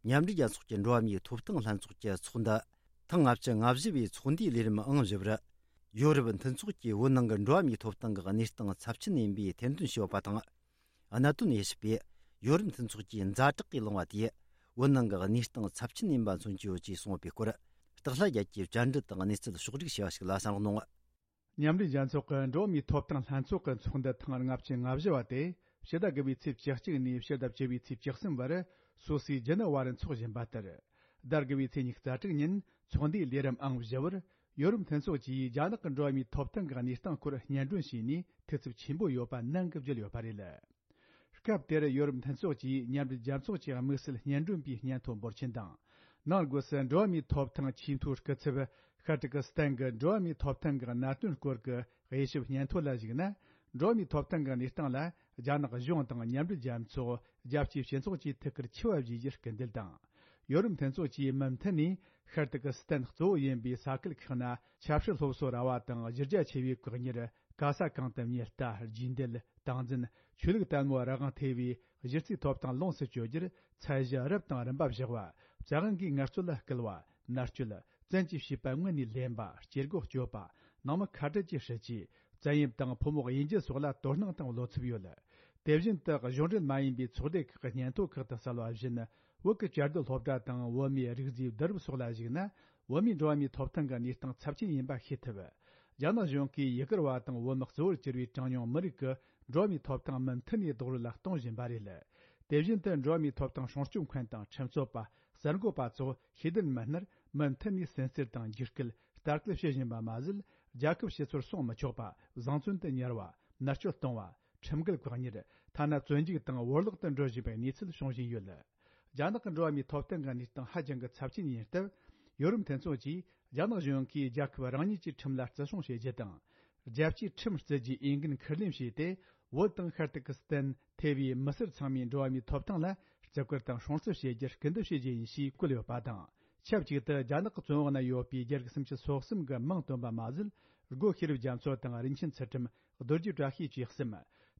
མཉམ་འབྲེལ་རྒྱལ་ཚོགས་ཀྱི་འགྲོ་བ་མིའི་ཐོབ་ཐང་ལྷན་ཚོགས་ཀྱི་ཚོགས་འདུ་ཐེངས་ལྔ་བཅུ་ང་བཞི་པའི་ཚོགས་འདུའི་ལས་རིམ་ཨང་བཞི་པར། ཡོ་རོབ་མཐུན་ཚོགས་ཀྱིས་བོད་ནང་གི་འགྲོ་བ་མིའི་ཐོབ་ཐང་གི་གནས་སྟངས་ཚབས་ཆེན་ཡིན་པའི་ཐེར་འདོན་བྱས་ཡོད་པ་དང་། གནད་དོན་དབྱེ་ཞིབ་པས་ཡོ་རོབ་མཐུན་ཚོགས་ཀྱིས་ཛ་དྲག་གིས་བླངས་པ་དེས་བོད་ནང་གི་གནས་སྟངས་ཚབས་ཆེན་ཡིན་པ་མཚོན་གྱི་ཡོད་ཅེས་གསུངས་ཡོད་པའི་སྐོར། སྟག་ལྷ་རྒྱལ་གྱིས་བཅར་འདྲི་དང་གནས་ཚུལ་ཕྱོགས་བསྒྲིགས་བྱས་པ་ཞིག་ལ་གསན་རོགས་གནང་། མཉམ་འབྲེལ་རྒྱལ་ཚོགས་ཀྱི་འགྲོ་བ་མིའི་ཐོབ་ཐང་ལྷན་ཚོགས་ཀྱི་ཚོགས་འདུ་ཐེངས་ལྔ་བཅུ་ང་བཞི་བ་དེ་ཕྱི་ཟླ་དགུ་པའི་ཚེས་བཅུ་གཅིག་ནས་ཕྱི་ཟླ་བཅུ་པའི་ཚེས་བཅུ་གསུམ་བར་སུད་སིའི་ཇི་ནི་ཝར་འཚོགས་བཞིན་པ་ལྟར། ཟླ་དགུ་པའི་ཚེས་ཉི་ཤུ་རྩ་དྲུག་ཉིན་ཚོགས་འདུའི་ལས་རིམ་ཨང་བཞི་བར། ཡོ་རོབ་མཐུན་ཚོགས་ཀྱིས་རྒྱ་ནག་གི་འགྲོ་བ་མིའི་ཐོབ་ཐང་གི་གནས་སྟངས་སྐོར་སྙན་སྒྲོན་བྱས་ནས་འཐུས་ཚབ་ཆེན་པོ་ཡོད་པ་ནན་གྱིས་བརྗོད་ཡོད་པ་རེད། སྐབས་དེར་ཡོ་རོབ་མཐུན་ཚོགས་ཀྱིས་མཉམ་འབྲེལ་རྒྱལ་ཚོགས་ཀྱི་དམིགས་བསལ་སྙན་སྒྲོན་པའི་སྙན་ཐོ་འབོར་ཆེན་དང་། ནང་སྒོས་སུ་འགྲོ་བ་མིའི་ཐོབ་ཐང་ཆེས་མཐོའི་སྐུ་ཚབ་ཤཱ་ཀྲི་ཀི་སི་ཐན་གྱི་འགྲོ་བ་མིའི་ཐོབ་ཐང་གི་གནད་དོན་སྐོར་གྱི་དབྱེ་ཞིབ་སྙན་ཐོ་ལ་གཞིགས་ན། འགྲོ་བ་མིའི་ཐོབ་ཐང་གི་གནས་སྟངས་ལ་རྒྱ་ནག་གཞུང་དང་མཉམ་འབྲེལ་རྒྱལ་ཚོགས། རྒྱལ་སྤྱིའི་སྤྱི་ཚོགས་ཀྱིས་ཐུགས་ཁུར་ཆེ་བ་བཞེས་རྒྱུར་སྐུལ་འདེད་དང་། ཡོ་རོབ་མཐུན་ཚོགས་ཀྱིས་མུ་མཐུད་ནས་ཤར་ཏུར་ཀི་སི་ཐན་གཙོ་བོ་ཡིན་པའི་ས་ཁུལ་ཁག་ན་ཆབ་སྲིད་སློབ་གསོ་ར་བ་དང་གཞི་རྒྱ་ཆེ་བའི་བཀག་ཉར། ག་ས་གང་དུ་ཉེན་བརྡ། རྒྱུས་འདེད། སྟངས་འཛིན། ཆོས་ལུགས་དད་མོས་རང་དབང་ཐེ་བའི་གཞི་རྩའི་ཐོབ་ཐང་ལོངས་སུ་སྤྱོད་རྒྱུར་ཚད་གཞི་རབ་དང་རིམ་པ་བཞག་པ། བཙན་དབང་གིས་ངལ་རྩོལ་ལ་སྐུལ་བ། མནར་གཅོད། བཙན་གྱིས་བྱིས་པ་དངོས་གནས་ལེན་པ། སྐྱེ་སྒོ་གཅོད་པ། ནང་མི་ཁ་བྲལ་གྱི་སྲིད་ཇུས། བཙན་གཡེམ་དང་ཕོ་མོ་དབྱེ་འབྱེད་སོགས་ལ་དོ་སྣང་དང་བློ་འཚབ་ཡོད། དེ་བཞིན་དུ་གཞུང་འབྲེལ་མ་ཡིན་པའི་ཚོགས་སྡེ་ཁག་གི་སྙན་ཐོ་ཁག་ཏུ་གསལ་བ་བཞིན། བོད་ཀྱི་བཅའ་སྡོད་སློབ་གྲྭ་དང་བོད་མིའི་རིགས་རྫས་བསྡུ་རུབ་སོགས་ལ་གཞིགས་ན། བོད་མིའི་འགྲོ་བ་མིའི་ཐོབ་ཐང་གི་གནས་སྟངས་ཚབས་ཆེན་ཡིན་པ་ཤེས་ཐུབ། རྒྱ་ནག་གཞུང་གིས་ཡུ་གུར་བ་དང་བོད་མི་གཙོ་བོར་གྱུར་པའི་གྲངས་ཉུང་མི་རིགས་ཀྱི་འགྲོ་བ་མིའི་ཐོབ་ཐང་མུ་མཐུད་ནས་རྡོག་རོལ་ལ་གཏོང་བཞིན་པ་རེད། དེ་བཞིན་དུ་འགྲོ་བ་མིའི་ཐོབ་ཐང་སྲུང་སྐྱོབ་མཁན་དང་ཁྲིམས་རྩོད་པ། གསར་འགོད་པ་སོགས་ཤེས་ལྡན་མི་སྣར་མུ་མཐུད་ནས་སུན་གཙེར་དང་འཇིགས་སྐུལ། ལྟ་སྐུལ་བྱེད་བཞིན་པ་མ་ཟད། རྒྱལ་ཁབ་ཕྱི་སོར་སོང་མི་ཆོག་པ། བཟང་བཙོན་དུ་ཉར་བ། མནར་གཅོད་གཏོང་བ། ཁྲིམས་འགལ་བཀག་ཉར། ཐ་ན་བཙོན་འཇུག་དང་བོར་བརླག་ཏུ་འགྲོ་བཞིན་པའི་གནས་ཚུལ་བྱུང་བཞིན་ཡོད། རྒྱ་ནག་གི་འགྲོ་བ་མིའི་ཐོབ་ཐང་གི་གནས་སྟངས་ཧ་ཅང་གི་ཚབས་ཆེན་ཡིན་སྟབས། ཡོ་རོབ་མཐུན་ཚོགས་ཀྱིས་རྒྱ་ནག་གཞུང་གིས་རྒྱལ་ཁབ་རང་ཉིད་ཀྱི་ཁྲིམས་ལ་བརྩི་སྲུང་བྱེད་རྒྱུ་དང་། རྒྱལ་སྤྱིའི་ཁྲིམས་བརྩི་རྒྱུའི་འོས་འགན་ཁུར་ལེན་བྱས་ཏེ། བོད་དང་ཤར་ཏུར་ཀི་སི་ཐན་ཐེ་བའི་མི་སེར་ཚང་མའི་འགྲོ་བ་མིའི་ཐོབ་ཐང་ལ་བརྩི་བཀུར་དང་སྲུང་བརྩི་བྱེད་རྒྱུར་སྐུལ་འདེད་བྱེད་རྒྱུ་ཡིན་ཞེས་བཀོད་ཡོད་པ་དང་། ཆབས་ཅིག་ཏུ་རྒྱ་ནག་གི་བཙོན་འོག་ན་ཡོད་པའི་རྒྱ་རིགས་སུམ་ཅུ་སོ་གསུམ་གྱི་མིང་བཏོན་པ་མ་ཟད། སྒོ་ཤེས་རབ་རྒྱ་མཚོ་དང་རིན་ཆེན་ཚུལ་ཁྲིམས། རྡོ་རྗེ་བཀྲ་ཤིས་བཅས་གསུམ།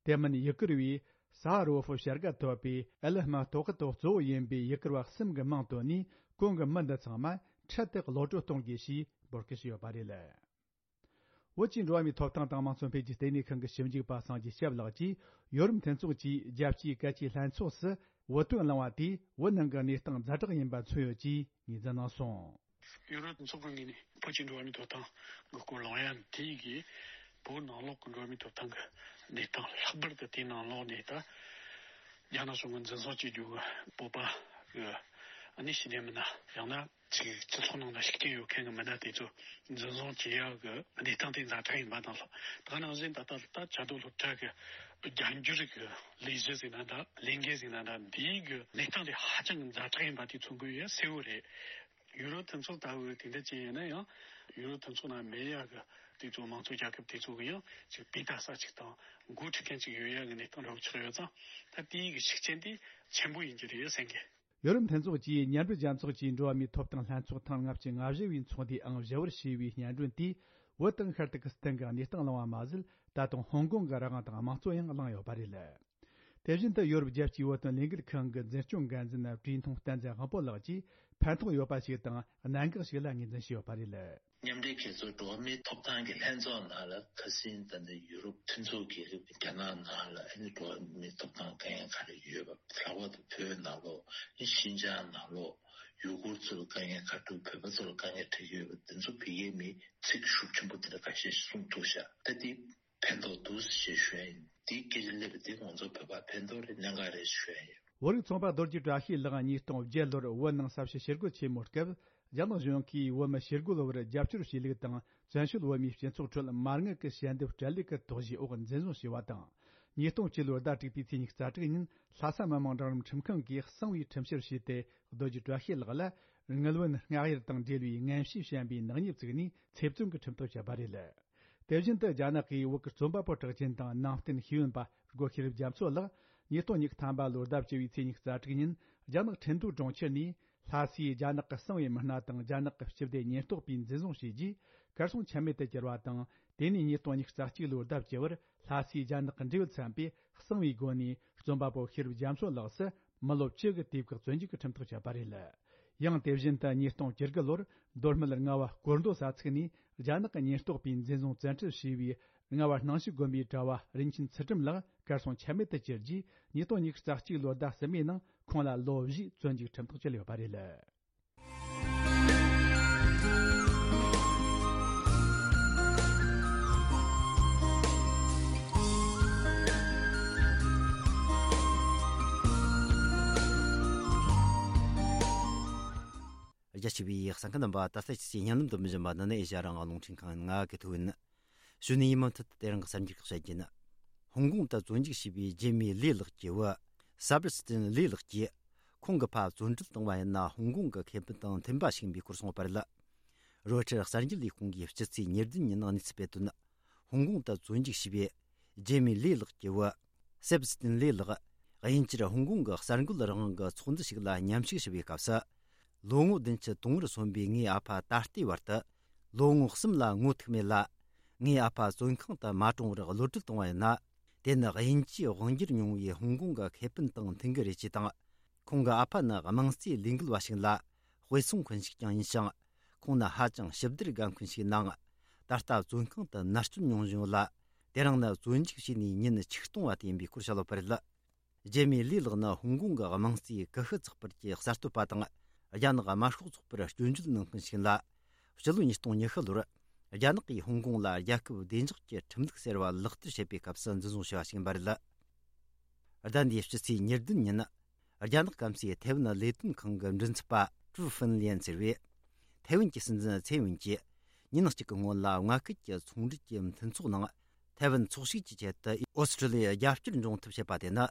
དེ་མིན་ཡུ་གུར་བའི་ས་ཧ་རོ་ཧྥོ་བྱ་དགའ་ཐོབ་པའི་ཨེ་ལི་མ་ཏོ་ཁི་ཏོ་གཙོ་བོ་ཡིན་པའི་ཡུ་གུར་བ་གསུམ་གྱི་མིང་བཏོན་ནས། གོང་གི་མི་འདི་ཚང་མ་འཕྲལ་དུ་གློད་གྲོལ་གཏོང་དགོས་ཞེས་འབོད་སྐུལ་བྱས་ཡོད་པ་རེད། བོད་ཀྱི་འགྲོ་བ་མིའི་ཐོབ་ཐང་དང་དམངས་གཙོ་འཕེལ་རྒྱས་ལྟེ་གནས་ཁང་གི་ཞིབ་འཇུག་པ་སངས་རྒྱས་སྐྱབས་ལགས་ཀྱིས། ཡོ་རོབ་མཐུན་ཚོགས་ཀྱིས་རྒྱལ་སྤྱིའི་གལ་ཆེའི་ལྷན་ཚོགས་སུ་བོད་དོན་གླེང་བ་དེས་བོད་ནང་གི་གནས་སྟངས་ཛ་དྲག་ཡིན་པ་མཚོན་ཡོད་ཅེས་ངོས་འཛིན་གནང་སོང་། ཡོ་རོབ་མཐུན་ཚོགས་ཀྱི་ངོས་ནས་བོད་ཀྱི་འགྲོ་བ་མིའི་ཐོབ་ཐང་གི་སྐོར་གླེང་ཡ་དེ་གིས། བོད་ནང་ལོགས་ཀྱི་འགྲོ་བ་མིའི་ཐོབ་ཐང་གི་གནས་སྟངས། ལྷག་པར་དུ་དེའི་ནང་ལོགས་ནས་ད་རྒྱ་ནག་གཞུང་གིས་འཛིན་བཟུང་བྱེད་རྒྱུ་གི་བོད་པ་གི་ཨ་ནི་ཤི་ནས་མིན་ན། ཡང་ན་ཅིག་སྤྱི་ཚོགས་ནང་ལ་ཤུགས་རྐྱེན་ཡོད་མཁན་གྱི་མི་སྣ་དེ་ཚོ་འཛིན་བཟུང་བྱེད་ཡག་གི་གནས་སྟངས་དེ་ཛ་དྲག་ཡིན་པ་དང་། ད་ག་ནང་བཞིན་ད་ལྟ་ད་བཅའ་སྡོད་སློབ་གྲྭ་གི་རྒྱ་འགྱུར་གྱི་ལས་གཞི་ཟེར་ན་འདྲ། ལས་འགན་ཟེར་ན་འདྲ། འདིའི་གི་གནས་སྟངས་དེ་ཧ་ཅང་གི་ཛ་དྲག་ཡིན་པ་དེ་མཚོན་གྱི་ཡོད་གསལ་བོ་རེད། ཡུ་རོབ་མཐུན་ཚོགས་ལྟ་བུ་དེ་འདྲ་ཅན་ཡིན་ན་ཡང་། ཡུ་རོབ་མཐུན་ཚོགས་ནང་མེད་ཡག་གི་དེ་ཚོ་མང་གཙོ་རྒྱལ་ཁབ་དེ་ཚོ་གི་ཡང་ཅིག་དཔེ་ལྟ་ས་ཅིག་དང་འགོ་ཁྲིད་མཁན་ཅིག་ཡོད་ཡག་གི་གནས་སྟངས་འདྲ་བོ་ཆགས་ཡོད་ཙང་། ད་དེའི་གི་ཤུགས་རྐྱེན་དེ་ཆེན་པོ་ཡིན་གྱི་རེད་བསམ་གི། ཡོ་རོབ་མཐུན་ཚོགས་ཀྱིས་མཉམ་འབྲེལ་རྒྱལ་ཚོགས་ཀྱི་འགྲོ་བ་མིའི་ཐོབ་ཐང་ལྷན་ཚོགས་ཐེངས་ལྔ་བཅུ་ང་བཞི་བའི་ཚོགས་འདུའི་ཨང་བཞི་བར་བྱས་པའི་སྙན་སྒྲོན་དེས། བོད་དང་ཤར་ཏུར་ཀི་སི་ཐན་གྱི་གནས་སྟངས་གླེང་བ་མ་ཟད། ད་དུང་ཧོང་ཀོང་གི་རང་དབང་དང་དམངས་གཙོ་ཡང་གླེང་ཡོད་པ་རེད། དེ་བཞིན་དུ་ཡོ་རོབ་རྒྱལ་སྤྱིའི་བོད་དོན་ལས་འགུལ་ཁང་གི་འཛིན་སྐྱོང་འགན་འཛིན་ཀྲུའུ་ཐུང་བསྟན་འཛིན་དབང་པོ་ལགས་ཀྱིས་ཕན་ཐོགས་ཡོད་པ་ཞིག་དང་གནད་འགག་ཞིག་ལ་ངོས་འཛིན་བྱས་ཡོད་པ་རེད། མཉམ་འབྲེལ་རྒྱལ་ཚོགས་འགྲོ་བ་མིའི་ཐོབ་ཐང་གི་ལྷན་ཚོགས་ནང་ལ་ཁ་སང་ད་ནི་ཡུ་རོབ་མཐུན་ཚོགས་ཀྱི་རྒྱ་ནག་ནང་ལ་ཨ་ནི་འགྲོ་བ་མིའི་ཐོབ་ཐང་དཀའ་ངལ་ག་རེ་ཡོད་པ། ལྷག་པར་དུ་བོད་ནང་ལོགས། ཨ་ནི་ཤིན་ཅང་ནང་ལོགས་ཡུ་གུར་ཚོར་དཀའ་ངལ་ག་རེ་འདུག་བོད་པ་ཚོར་དཀའ་ངལ་འཕྲད་ཀྱི་ཡོད་པ་དེ་ཚོ་བོད་ཡིག་མི་ཚིག་ཤུགས་ཆེན་པོ་དེ་འདྲ་ཁ་ཤས་ཤིག་གསུངས་འདུག་ཤག་ད་དེ་ཕན་ཐོགས་འདུག་ཞེས་ཞུ་ཡ་ཡིན། དེའི་སྐད་ཆ་སླེབས་པ་དེ་ང་ཚོ་བོད་པར་ཕན་ཐོགས་རེད། གནད་འགག་རེད་ཞུ་ཡ་ཡིན། བོད་རིགས་ཚོང་པ་རྡོ་རྗེ་བཀྲ་ཤིས་ལགས་ཉིས་སྟོང་བརྒྱད་ལོར་བོད་ནང་ས་བྱི་ཞི་རྒོལ་ཆེན་མོའི་སྐབས། རྒྱ་ནག་གཞུང་གིས་བོད་མི་ཞི་རྒོལ་བར་རྒྱབ་སྐྱོར་བྱས་ལུགས་དང་། བཙན་བྱོལ་བོད་མིའི་སྤྱི་ཚོགས་ཁྲོད་མ་དངུལ་གྱི་ཞལ་འདེབས་སྤྲད་ལུགས་ཀྱི་དོགས་གཞིའི་འོག་འཛིན་བཟུང་བྱས་པ་དང་། ཉིས་སྟོང་བཅུ་ལོའི་ཟླ་དྲུག་པའི་ཚེས་ཉི་ཤུ་རྩ་དྲུག་ཉིན་ལྷ་ས་མི་དམངས་རང་རིམ་ཁྲིམས་ཁང་གིས་གསང་བའི་ཁྲིམས་བཤེར་བྱས་ཏེ། རྡོ་རྗེ་བཀྲ་ཤིས་ལགས་ལ་དངུལ་བུན་སྔགས་གཡར་དང་འབྲེལ་བའི་ངན་བྱུས་བཤམས་པའི་ནག་ཉེས་བཙུགས་ནས་ཚེ་བཙོན་གྱི་ཁྲིམས་ཐག་བཅད་པ་རེད། དེ་བཞིན་དུ་རྒྱ་ནག་གིས་བོད་ཀྱི་རྩོམ་པ་པོ་གྲགས་ཅན་དང་ནང་བསྟན་ཤེས་ཡོན་པ་སྒོ་ཤེས་རབ་རྒྱ་མཚོ་ལགས་ཉིས་སྟོང་ཉི་ཤུ་ཐམ་པ་ལོའི་ཟླ་བཅུ་བའི་ཚེས་ཉི་ཤུ་རྩ་དྲུག་ཉིན་རྒྱ་ནག་ཁྲིན་ཏུའུ་གྲོང་ཁྱེར་ནས་ལྷ་སའི་རྒྱ་ནག་གི་གསང་བའི་མི་སྣ་དང་རྒྱ་ནག་གི་སྤྱི་བདེ་ཉེན་རྟོག་པས་འཛིན་བཟུང་བྱས་རྗེས་གར་སོང་ཆ་མེད་དུ་གྱུར་བ་དང་། དེ་ནས་ཉིས་སྟོང་ཉི་ཤུ་རྩ་གཅིག་ལོའི་ཟླ་བཅུ་བར་ལྷ་སའི་རྒྱ་ནག་གི་འབྲེལ་ཡོད་ཚན་པས་གསང་བའི་སྒོ་ནས་རྩོམ་པ་པོ་ཤེས་རབ་རྒྱ་མཚོ་ལགས་སུ། མི་ལོ་བཅུ་གི་དུས་བཀག་བཙོན་འཇུག་གི་ཁྲིམས་ཐག་བཅད་པ་རེད། ཡང་དེ་བཞིན་དུ་ཉིས་སྟོང་བཅུ་དགུ་ལོར་མདོ་སྨད་རྔ་བ་སྐོར་མདོ་ས་ཚིགས་ནས་རྒྱ་ནག་གི་ཉེན་རྟོག་པས་འཛིན་བཟུང་བཙན་ཁྲིད་བྱས་པའི་རྔ་བ་སྣང་ཞིག་དགོན་པའི་གྲྭ་བ་རིན་ཆེན་ཚུལ་ཁྲིམས་ལགས་གར་སོང་ཆ་མེད་དུ་གྱུར་རྗེས། ཉིས་སྟོང་ཉི་ཤུ་རྩ་གཅིག་ལོའི་ཟླ་གསུམ་པའི་ནང་ཁོང་ལ་ལོ་བཞིའི་བཙོན་འཇུག་ཁྲིམས་ཐག་བཅད་ཡོད་པ་རེད། རྒྱ་ཆེ་བའི་གསན་མཁན་རྣམ་པ། ད་ལྟ་ཁྱེད་ཚོས་བརྙན་ལམ་དུ་མི་འཇོན་པ་འདི་ནི་ཨེ་ཤ་ཡ་རང་དབང་རླུང་འཕྲིན་ཁང་ང་གི་ཐོག་ཡིན། གཞུག་ནས་ཡིན་མུ་མཐུད་དེ་རིང་གི་གསར་འགྱུར་ཁག་བཤད་རྒྱུ་ཡིན། ཧོང་ཀོང་དུ་བཙོན་འཇུག་བྱས་པའི་རྒྱུད་མའི་ལི་ལགས་ཀྱི་བུ་སཱ་བར་སི་ཏིན་ལི་ལགས་ཀྱིས། ཁོང་གི་ཕ་བཙོན་ཁྲིད་བཏང་བ་ཡིན་ན་ཧོང་ཀོང་གི་ཁེ་ཕན་དང་མཐུན་པ་ཞིག་ཡིན་པའི་སྐོར་གསུངས་པ་རེད། རོའི་ཊར་གསར་འགྱུར་ལས་ཁུངས་ཀྱིས་སྤྱི་ཚེས་ཉེར་བདུན་ཉིན་གནས་ཚུལ་སྤེལ་དོན། ཧོང་ཀོང་དུ་བཙོན་འཇུག་བྱས་པའི་ ཇེ་མི་ལི་ལགས་ཀྱི་བུ། སེབ་སི་ཏིན་ལི་ལགས། དབྱིན་ཇིར་ཧོང་ཀོང་གི་གསར་འགོད་རང་དབང་གི་ཚོགས་འདུ་ཞིག་ལ་མཉམ་ཞུགས་ཞུ་བའི་སྐབས་སུ། ལོ་ངོ་བདུན་ཅུ་དོན་བུར་སོན་པའི་ངའི་ཨ་ཕ་ད་ལྟའི་བར་དུ། ལོ་ངོ་གསུམ་ལ་ངོ་ཐུག་མེད་ལ། ངའི་ཨ་ཕ་བཙོན་ཁང་དུ་མ་གྲོངས་བར་གློད་གྲོལ་བཏང་བ་ཡིན་ན། དེ་ནི་དབྱིན་ཇིའི་དབང་སྒྱུར་མྱོང་བའི་ཧོང་ཀོང་གི་ཁེ་ཕན་དང་མཐུན་གྱི་རེད་ཅེས་དང་། ཁོང་གི་ཨ་ཕ་ནི་དམངས་གཙོའི་ལས་འགུལ་བ་ཞིག་ལ་དཔེ་མཚོན་མཁན་ཞིག་ཀྱང་ཡིན་ཞིང་། ཁོང་ནི་ཧ་ཅང་ཞིབ་བསྡུར་དགའ་མཁན་ཞིག་ཡིན་ནའང་། ད་ལྟ་བཙོན་ཁང་དུ་མནར་གཅོད་མྱོང་བཞིན་ཡོད་ལ། དེ་རིང་ནི་བཙོན་འཇུག་བྱས་ནས་ཉིན་ཆིག་སྟོང་བ་དེ་ཡིན་པའི་སྐོར་བཤད་ཡོད་པ་རེད། ཇེ་མི་ལི་ལགས་ནི་ཧོང་ཀོང་གི་དམངས་གཙོའི་ཀུ་ཤུ་ཚགས་པར་གྱི་གསར་གཏོད་པ་དང་། རྒྱ་ནག་དམར་ཤོག་ཚོགས་པར་སྐྱོན་བརྗོད་གནང་མཁན་ཞིག་ཡིན་ལ། ཕྱི་ལོ་ཉིས་སྟོང་ཉི་ཤུ་ལོར། རྒྱ་ནག་གིས་ཧོང་ཀོང་ལ་རྒྱལ་ཁབ་བདེ་འཇགས་ཀྱི་ཁྲིམས་ལུགས་ཟེར་བ་ལག་བསྟར་བྱེད་པའི་སྐབས་སུ་འཛིན་བཟུང་བྱས་པ་ཞིག་ཡིན་པ་རེད། ཟླ་འདིའི་ཕྱི་ཚེས་ཉེར་བདུན་ཉིན། རྒྱ་ནག་སྐམ་སའི་ཐའེ་ཝན་ལས་དོན་ཁང་གི་མགྲིན་ཚབ་པ་ཀྲུའུ་ཧྥིན་ལིན་ཟེར་བས། ཐའེ་ཝན་གྱི་སྲིད་འཛིན་ཚེ་ཝེན་གྱིས་ཉིན་གཅིག་གི་སྔོན་ལ་མངའ་ཁུལ་གྱི་ཚོང་འབྲེལ་གྱི་མཐུན་ཚོགས་ནང་། ཐའེ་ཝན་ཚོགས་ཞུགས་ཀྱི་ཆེད་དུ་ཨོ་སི་ཀྲི་ལི་ཡར་རྒྱབ་སྐྱོར་འབྱུང་ཐབས་བྱེད་པ་དེ་ནི།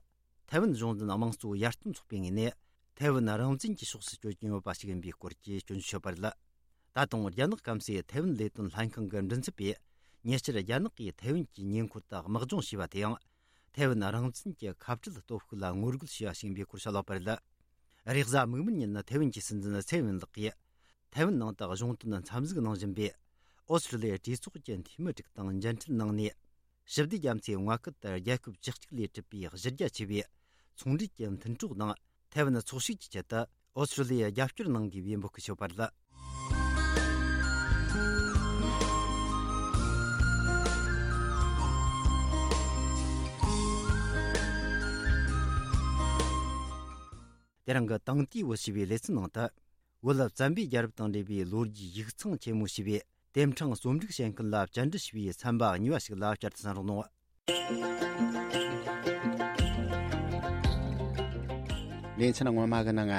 ཐའེ་ཝན་གཞུང་འཛིན་དམངས་གཙོ་ཡར་ཐོན་ཚོགས་པའི་ངོས་ནས། ཐའེ་ཝན་རང་བཙན་གྱི་ཕྱོགས་སུ་བསྐྱོད་ཀྱིན་ཡོད་པ་ཞིག་ཡིན་པའི་སྐོར་གྱི་སྐྱོན་བརྗོད་བྱས་པ་རེད། ད་དུང་རྒྱ་ནག་སྐམ་སའི་ཐའེ་ཝན་ལས་དོན་ལྷན་ཁང་གི་མགྲིན་ཚབ་པས། ཉེ་ཆར་རྒྱ་ནག་གིས་ཐའེ་ཝན་གྱི་ཉེ་འཁོར་དུ་དམག་སྦྱོང་བྱས་པ་དེའང་། ཐའེ་ཝན་རང་བཙན་གྱི་ཁ་བྲལ་སྟོབས་ཤུགས་ལ་ངོ་རྒོལ་བྱས་པ་ཞིག་ཡིན་པའི་སྐོར་བཤད་ཡོད་པ་རེད། རེས་གཟའ་མིག་དམར་ཉིན་ཐའེ་ཝན་གྱི་སྲིད་འཛིན་ཚེ་ཝེན་ལགས་ཀྱིས། ཐའེ་ཝན་ནང་དུ་གཞུང་དོན་འཚམས་གཟིགས་གནང་བཞིན་པའི། ཨོ་སི་ཀྲི་ལི་ཡའི་གྲོས་ཚོགས་ཀྱི་འཐུས་མི་དྲུག་དང་མཇལ་འཕྲད་གནང་ནས། ཞི་བདེ་རྒྱ་མཚོའི་མངའ་ཁུལ་དུ་རྒྱལ་ཁབ་བཅུ་གཅིག་ལས་གྲུབ་པའི་གཞི་རྒྱ་ཆེ་བའི་ཚོང་འབྲེལ་གྱི་མཐུན་གྲོགས་དང་ཐའེ་ཝན་ཚོགས་ཞུགས་ཀྱི་ཆེད་དུ་ཨོ་སི་ཀྲི་ལི་ཡར་རྒྱབ་སྐྱོར་གནང་དགོས་པའི་འབོད་སྐུལ་ཞུས་པ་རེད། དེ་རིང་གི་དེང་དུས་བོད་ཞེས་པའི་ལེ་ཚན་ནང་དུ། བོད་བཙན་པོའི་རྒྱལ་རབས་དང་འབྲེལ་བའི་ལོ་རྒྱུས་ཡིག་ཚང་ཆེན་མོ་ཞེས་པའི་དེབ་ཕྲེང་རྩོམ་སྒྲིག་བྱེད་མཁན་ལ་བཅར་འདྲི་ཞུས་པའི་ཚན་པ་གཉིས་པ་ཞིག་ལ་བཅར་དུ་གསན་རོགས་གནང་། ལེ་ཚན་སྔོན་མ་གི་ནང་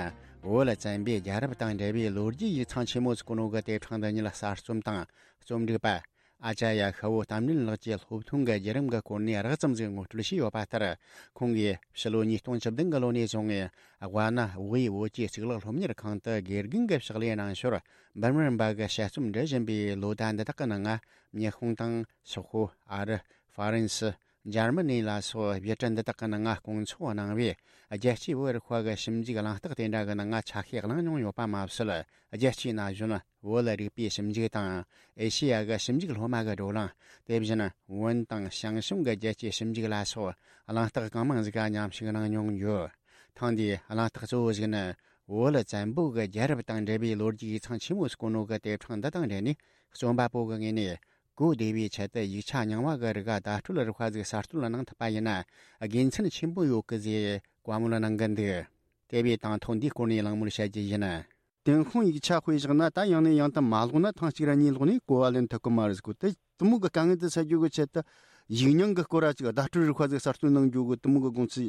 བོད་བཙན་པོའི་རྒྱལ་རབས་དང་འབྲེལ་བའི་ལོ་རྒྱུས་ཡིག་ཚང་ཆེན་མོ་ཟེར་གོ་ནོ་གི་དེབ་ཕྲེང་འདི་ཉིད་གསར་རྩོམ་དང་རྩོམ་སྒྲིག་པ། ཨ་ཅཱརྱ་ཤ་བོ་གཏམ་རིན་ལགས་ཀྱིས་སློབ་ཐོན་གྱི་བརྒྱུད་རིམ་གྱི་སྐོར་ནས་རགས་ཙམ་ཞིག་ངོ་སྤྲོད་བྱས་ཡོད་པ་ལྟར། ཁོང་གིས་ཕྱི་ལོ་ཉིས་སྟོང་བཅུ་བདུན་གྱི་ལོ་ནས་བཟུང་ངེ་དབའ་ན་བོད་ཡིག་བོད་ཀྱི་གཙུག་ལག་སློབ་གཉེར་ཁང་དུ་དགེ་རྒན་གྱི་ཕྱག་ལས་གནང་ཞོར། འབུམ་རམས་པ་གི་དཔྱད་རྩོམ་འབྲི་བཞིན་པའི་ལོ་ཟླ་འདི་དག་གི་ནང་། ཉི་ཧོང་དང་སོག་པོ། ཨ་རི། ཧྥ་རན་སི། འཇར་མ་ནི་ལ་སོགས་བོད་འདི་དག་གི་ནང་སྐོང་ཚོགས་གནང་བས། རྒྱལ་སྤྱིའི་བོད་རིག་པ་གི་ཞིབ་འཇུག་གླེང་སྟེགས་དེ་འདྲ་གི་ནང་ཆ་ཤས་བླངས་མྱོང་ཡོད་པ་མ་ཟད། རྒྱལ་སྤྱིའི་ན་གཞོན་བོད་རིག་པའི་ཞིབ་འཇུག་དང་། ཨེ་ཤེ་ཡ་གི་ཞིབ་འཇུག་སློབ་མ་གི་བགྲོ་གླེང་། དེ་བཞིན་བོན་དང་ཞང་ཞུང་གི་རྒྱལ་སྤྱིའི་ཞིབ་འཇུག་ལ་སོགས་གླེང་སྟེགས་གང་མང་ཞིག་མཉམ་ཞུགས་གནང་མྱོང་ཡོད། ཐེངས་འདིའི་གླེང་སྟེགས་གཙོ་བོ་ཞིག་ནི། བོད་བཙན་པོ་གི་རྒྱལ་རབས་དང་འབྲེལ་བའི་ལོ་རྒྱུས་ཡིག་ཚང་ཆེན་མོ་ཟེར་གོ་ནོ་གི་དེབ་ཕྲེང་འདི་དང་འབྲེལ་ནས། རྩོམ་པ་པོ་གི་ངོས་ནས་གོ་བདེ་བའི་ཆེད་དུ་ཡིག་ཆ་རྙིང་བ་གི་རིགས་བརྡ་སྤྲོད་རིག་པ་ཟིག་གསར་གཏོད་གནང་ཐུབ་པ་ཡིན་ན་དགེ་མཚན་ཆེན་པོ་ཡོད་གི་ཟེར་བཀའ་མོལ་གནང་གི་འདུག་དེ་བས་དང་ཐོག་འདིའི་སྐོར་ནས་གླེང་མོལ་བྱ་རྒྱུ་ཡིན། ཏུན་ཧོང་ཡིག་ཆ་དཔེ་བཞག་ན། ད་ཡང་ནས་ཡང་དུ་མ་ཀློག་ན་ཐེངས་གཅིག་ར་གཉིས་ཀློག་ནས་གོ་བ་ལེན་ཐུབ་གི་མ་རེད་ཟེར་གོ། དེ་དེ་མོ་གི་དཀའ་ངལ་དེ་སེལ་རྒྱུ་གི་ཆེད་དུ་ཡིག་རྙིང་གི་སྐོར་ར་ཅིག་བརྡ་སྤྲོད་རིག་པ་ཟིག་གསར་གཏོད་གནང་རྒྱུ་གི་དེ་མོ་གི་དགོངས་ཚུལ་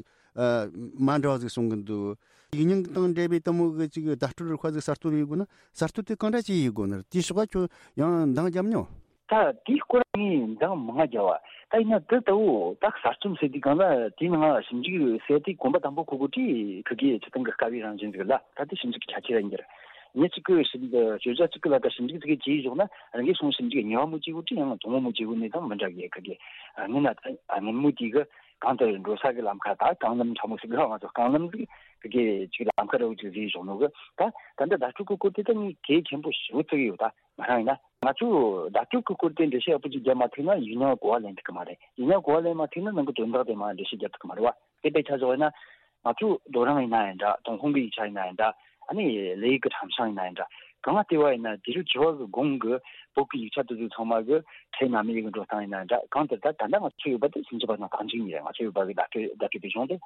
མ་འདྲ་བ་ཟིག་གསུང་གི་འདུག་ཡིག་རྙིང་དང་འབྲེལ་བའི་དེ་མོ་གི་ཅིག་བརྡ་སྤྲོད་རིག་པ་ཟིག་གསར་གཏོད་ཡེད་དགོས་ན་གསར་གཏོད་དེ་གང་འདྲ་ཅིག་ཡེད་དགོས་ནི་རེད། དེའི་ཕྱོགས་ཁྱོད་ཡང་འདང་རྒྱབ་མྱོང་། ད་དེའི་སྐོར་ངས་འདང་མང་ང་རྒྱབ་པ། ད་ཡིན་ན་དེ་ལྟ་བུ་ད་གསར་རྩོམ་ཟེར་དུས་གང་ལ་དེའི་ནང་ཞིབ་འཇུག་ཟེར་དུས་གོམ་པ་དང་པོ་ཁོ་གོ་ཁྲིད་ཁི་གེ་ཆི་ཐང་གི་དཀའ་བའི་རང་བཞིན་ཟིག་ལ། ད་དེ་ཞིབ་འཇུག་གི་ཆ་ཆེ་ར་ཡིན་རྒྱུ་རེད། ངས་གཅིག་གི་ཞིབ་འཇུག་བརྗོད་བྱ་གཅིག་གི་ལ་ད་ཞིབ་འཇུག་ཟིག་གི་བྱས་བཞག་ན་རང་གི་སོང་ཞིབ་འཇུག་གཉིས་པ་མོ་གཅིག་གོ་ཁྲིད་ཡང་དང་པོ་མོ་གཅིག་གོ་ནས་དང་མི་འདྲ་གི་ཁི་གེ། ངས་ན་ད་སྔོན་མོ་དེ་གི་གང་ལྟར་འགྲོ་ས་གི་ལམ་ཁ་ད་རྐང་ལམ་ཕྲ་མོ་ཟིག་ལ་ང་ཚོ་རྐང་ལམ་ཟིག་ཁི་གེ་ཅིག་ལམ་ཁ་ར་བོ་ཅིག་བཟོས་བཞག་ནོ་གི། ད་ད་ལྟ་བརྡ་སྤྲོད་གི་སྐོར་དེ་ད་ངས་གལ་ཆེན་པོ་ཞེ་པོ་བརྩི་གི་ཡོད། ད་ང་རང་ཡིན་ན། ང་ཚོས་བརྡ་སྤྲོད་ཀྱི་སྐོར་དེ་འགྲེལ་བཤད་ཡག་པོ་ཅིག་བརྒྱབ་མ་ཐུབ་ན་ཡིག་རྙིང་གོ་བ་ལེན་ཐུབ་ཀྱི་མ་རེད། ཡིག་རྙིང་གོ་བ་ལེན་མ་ཐུབ་ན་ནང་གི་དོན་དག་དེ་མར་འགྲེལ་བཤད་རྒྱབ་ཐུབ་ཀྱི་མ་རེད་བ། དེ་དཔེ་ཆ་བཞག་ཡིན་ན། ང་ཚོ་རྡོ་རིང་ཡིན་ན་ཡང་འདྲ། ཏུན་ཧོང་གི་ཡིག་ཆ་ཡིན་ན་ཡང་འདྲ། ཨ་ནི་ལི་ཡིག་གི་ཁྲམ་ཤང་ཡིན་ན་ཡང་འདྲ། གང་ལྟེ་བ་ཡིན་ན་དེ་རུ་བྱི་བ་གི་གོང་གི་བོད་ཀྱི་ཡིག་ཆ་དེ་ཚོ་ཚང་མ་གི་ཕྲད་རྣམ་དབྱེ་གི་འགྲོ་སྟངས་ཡིན་ན་ཡང་འདྲ། གང་ལྟར་ད་ད་ལྟ་ང་ཚོ་ཡོད་པ་དེ་སུམ་ཅུ་པ་དང་རྟགས་འཇུག་གཉིས་རེད། ང་ཚོ་ཡོད་པ་གི་བརྡ་སྤྲོད་བརྡ་སྤྲོད་པའི་གཞུང་དེ།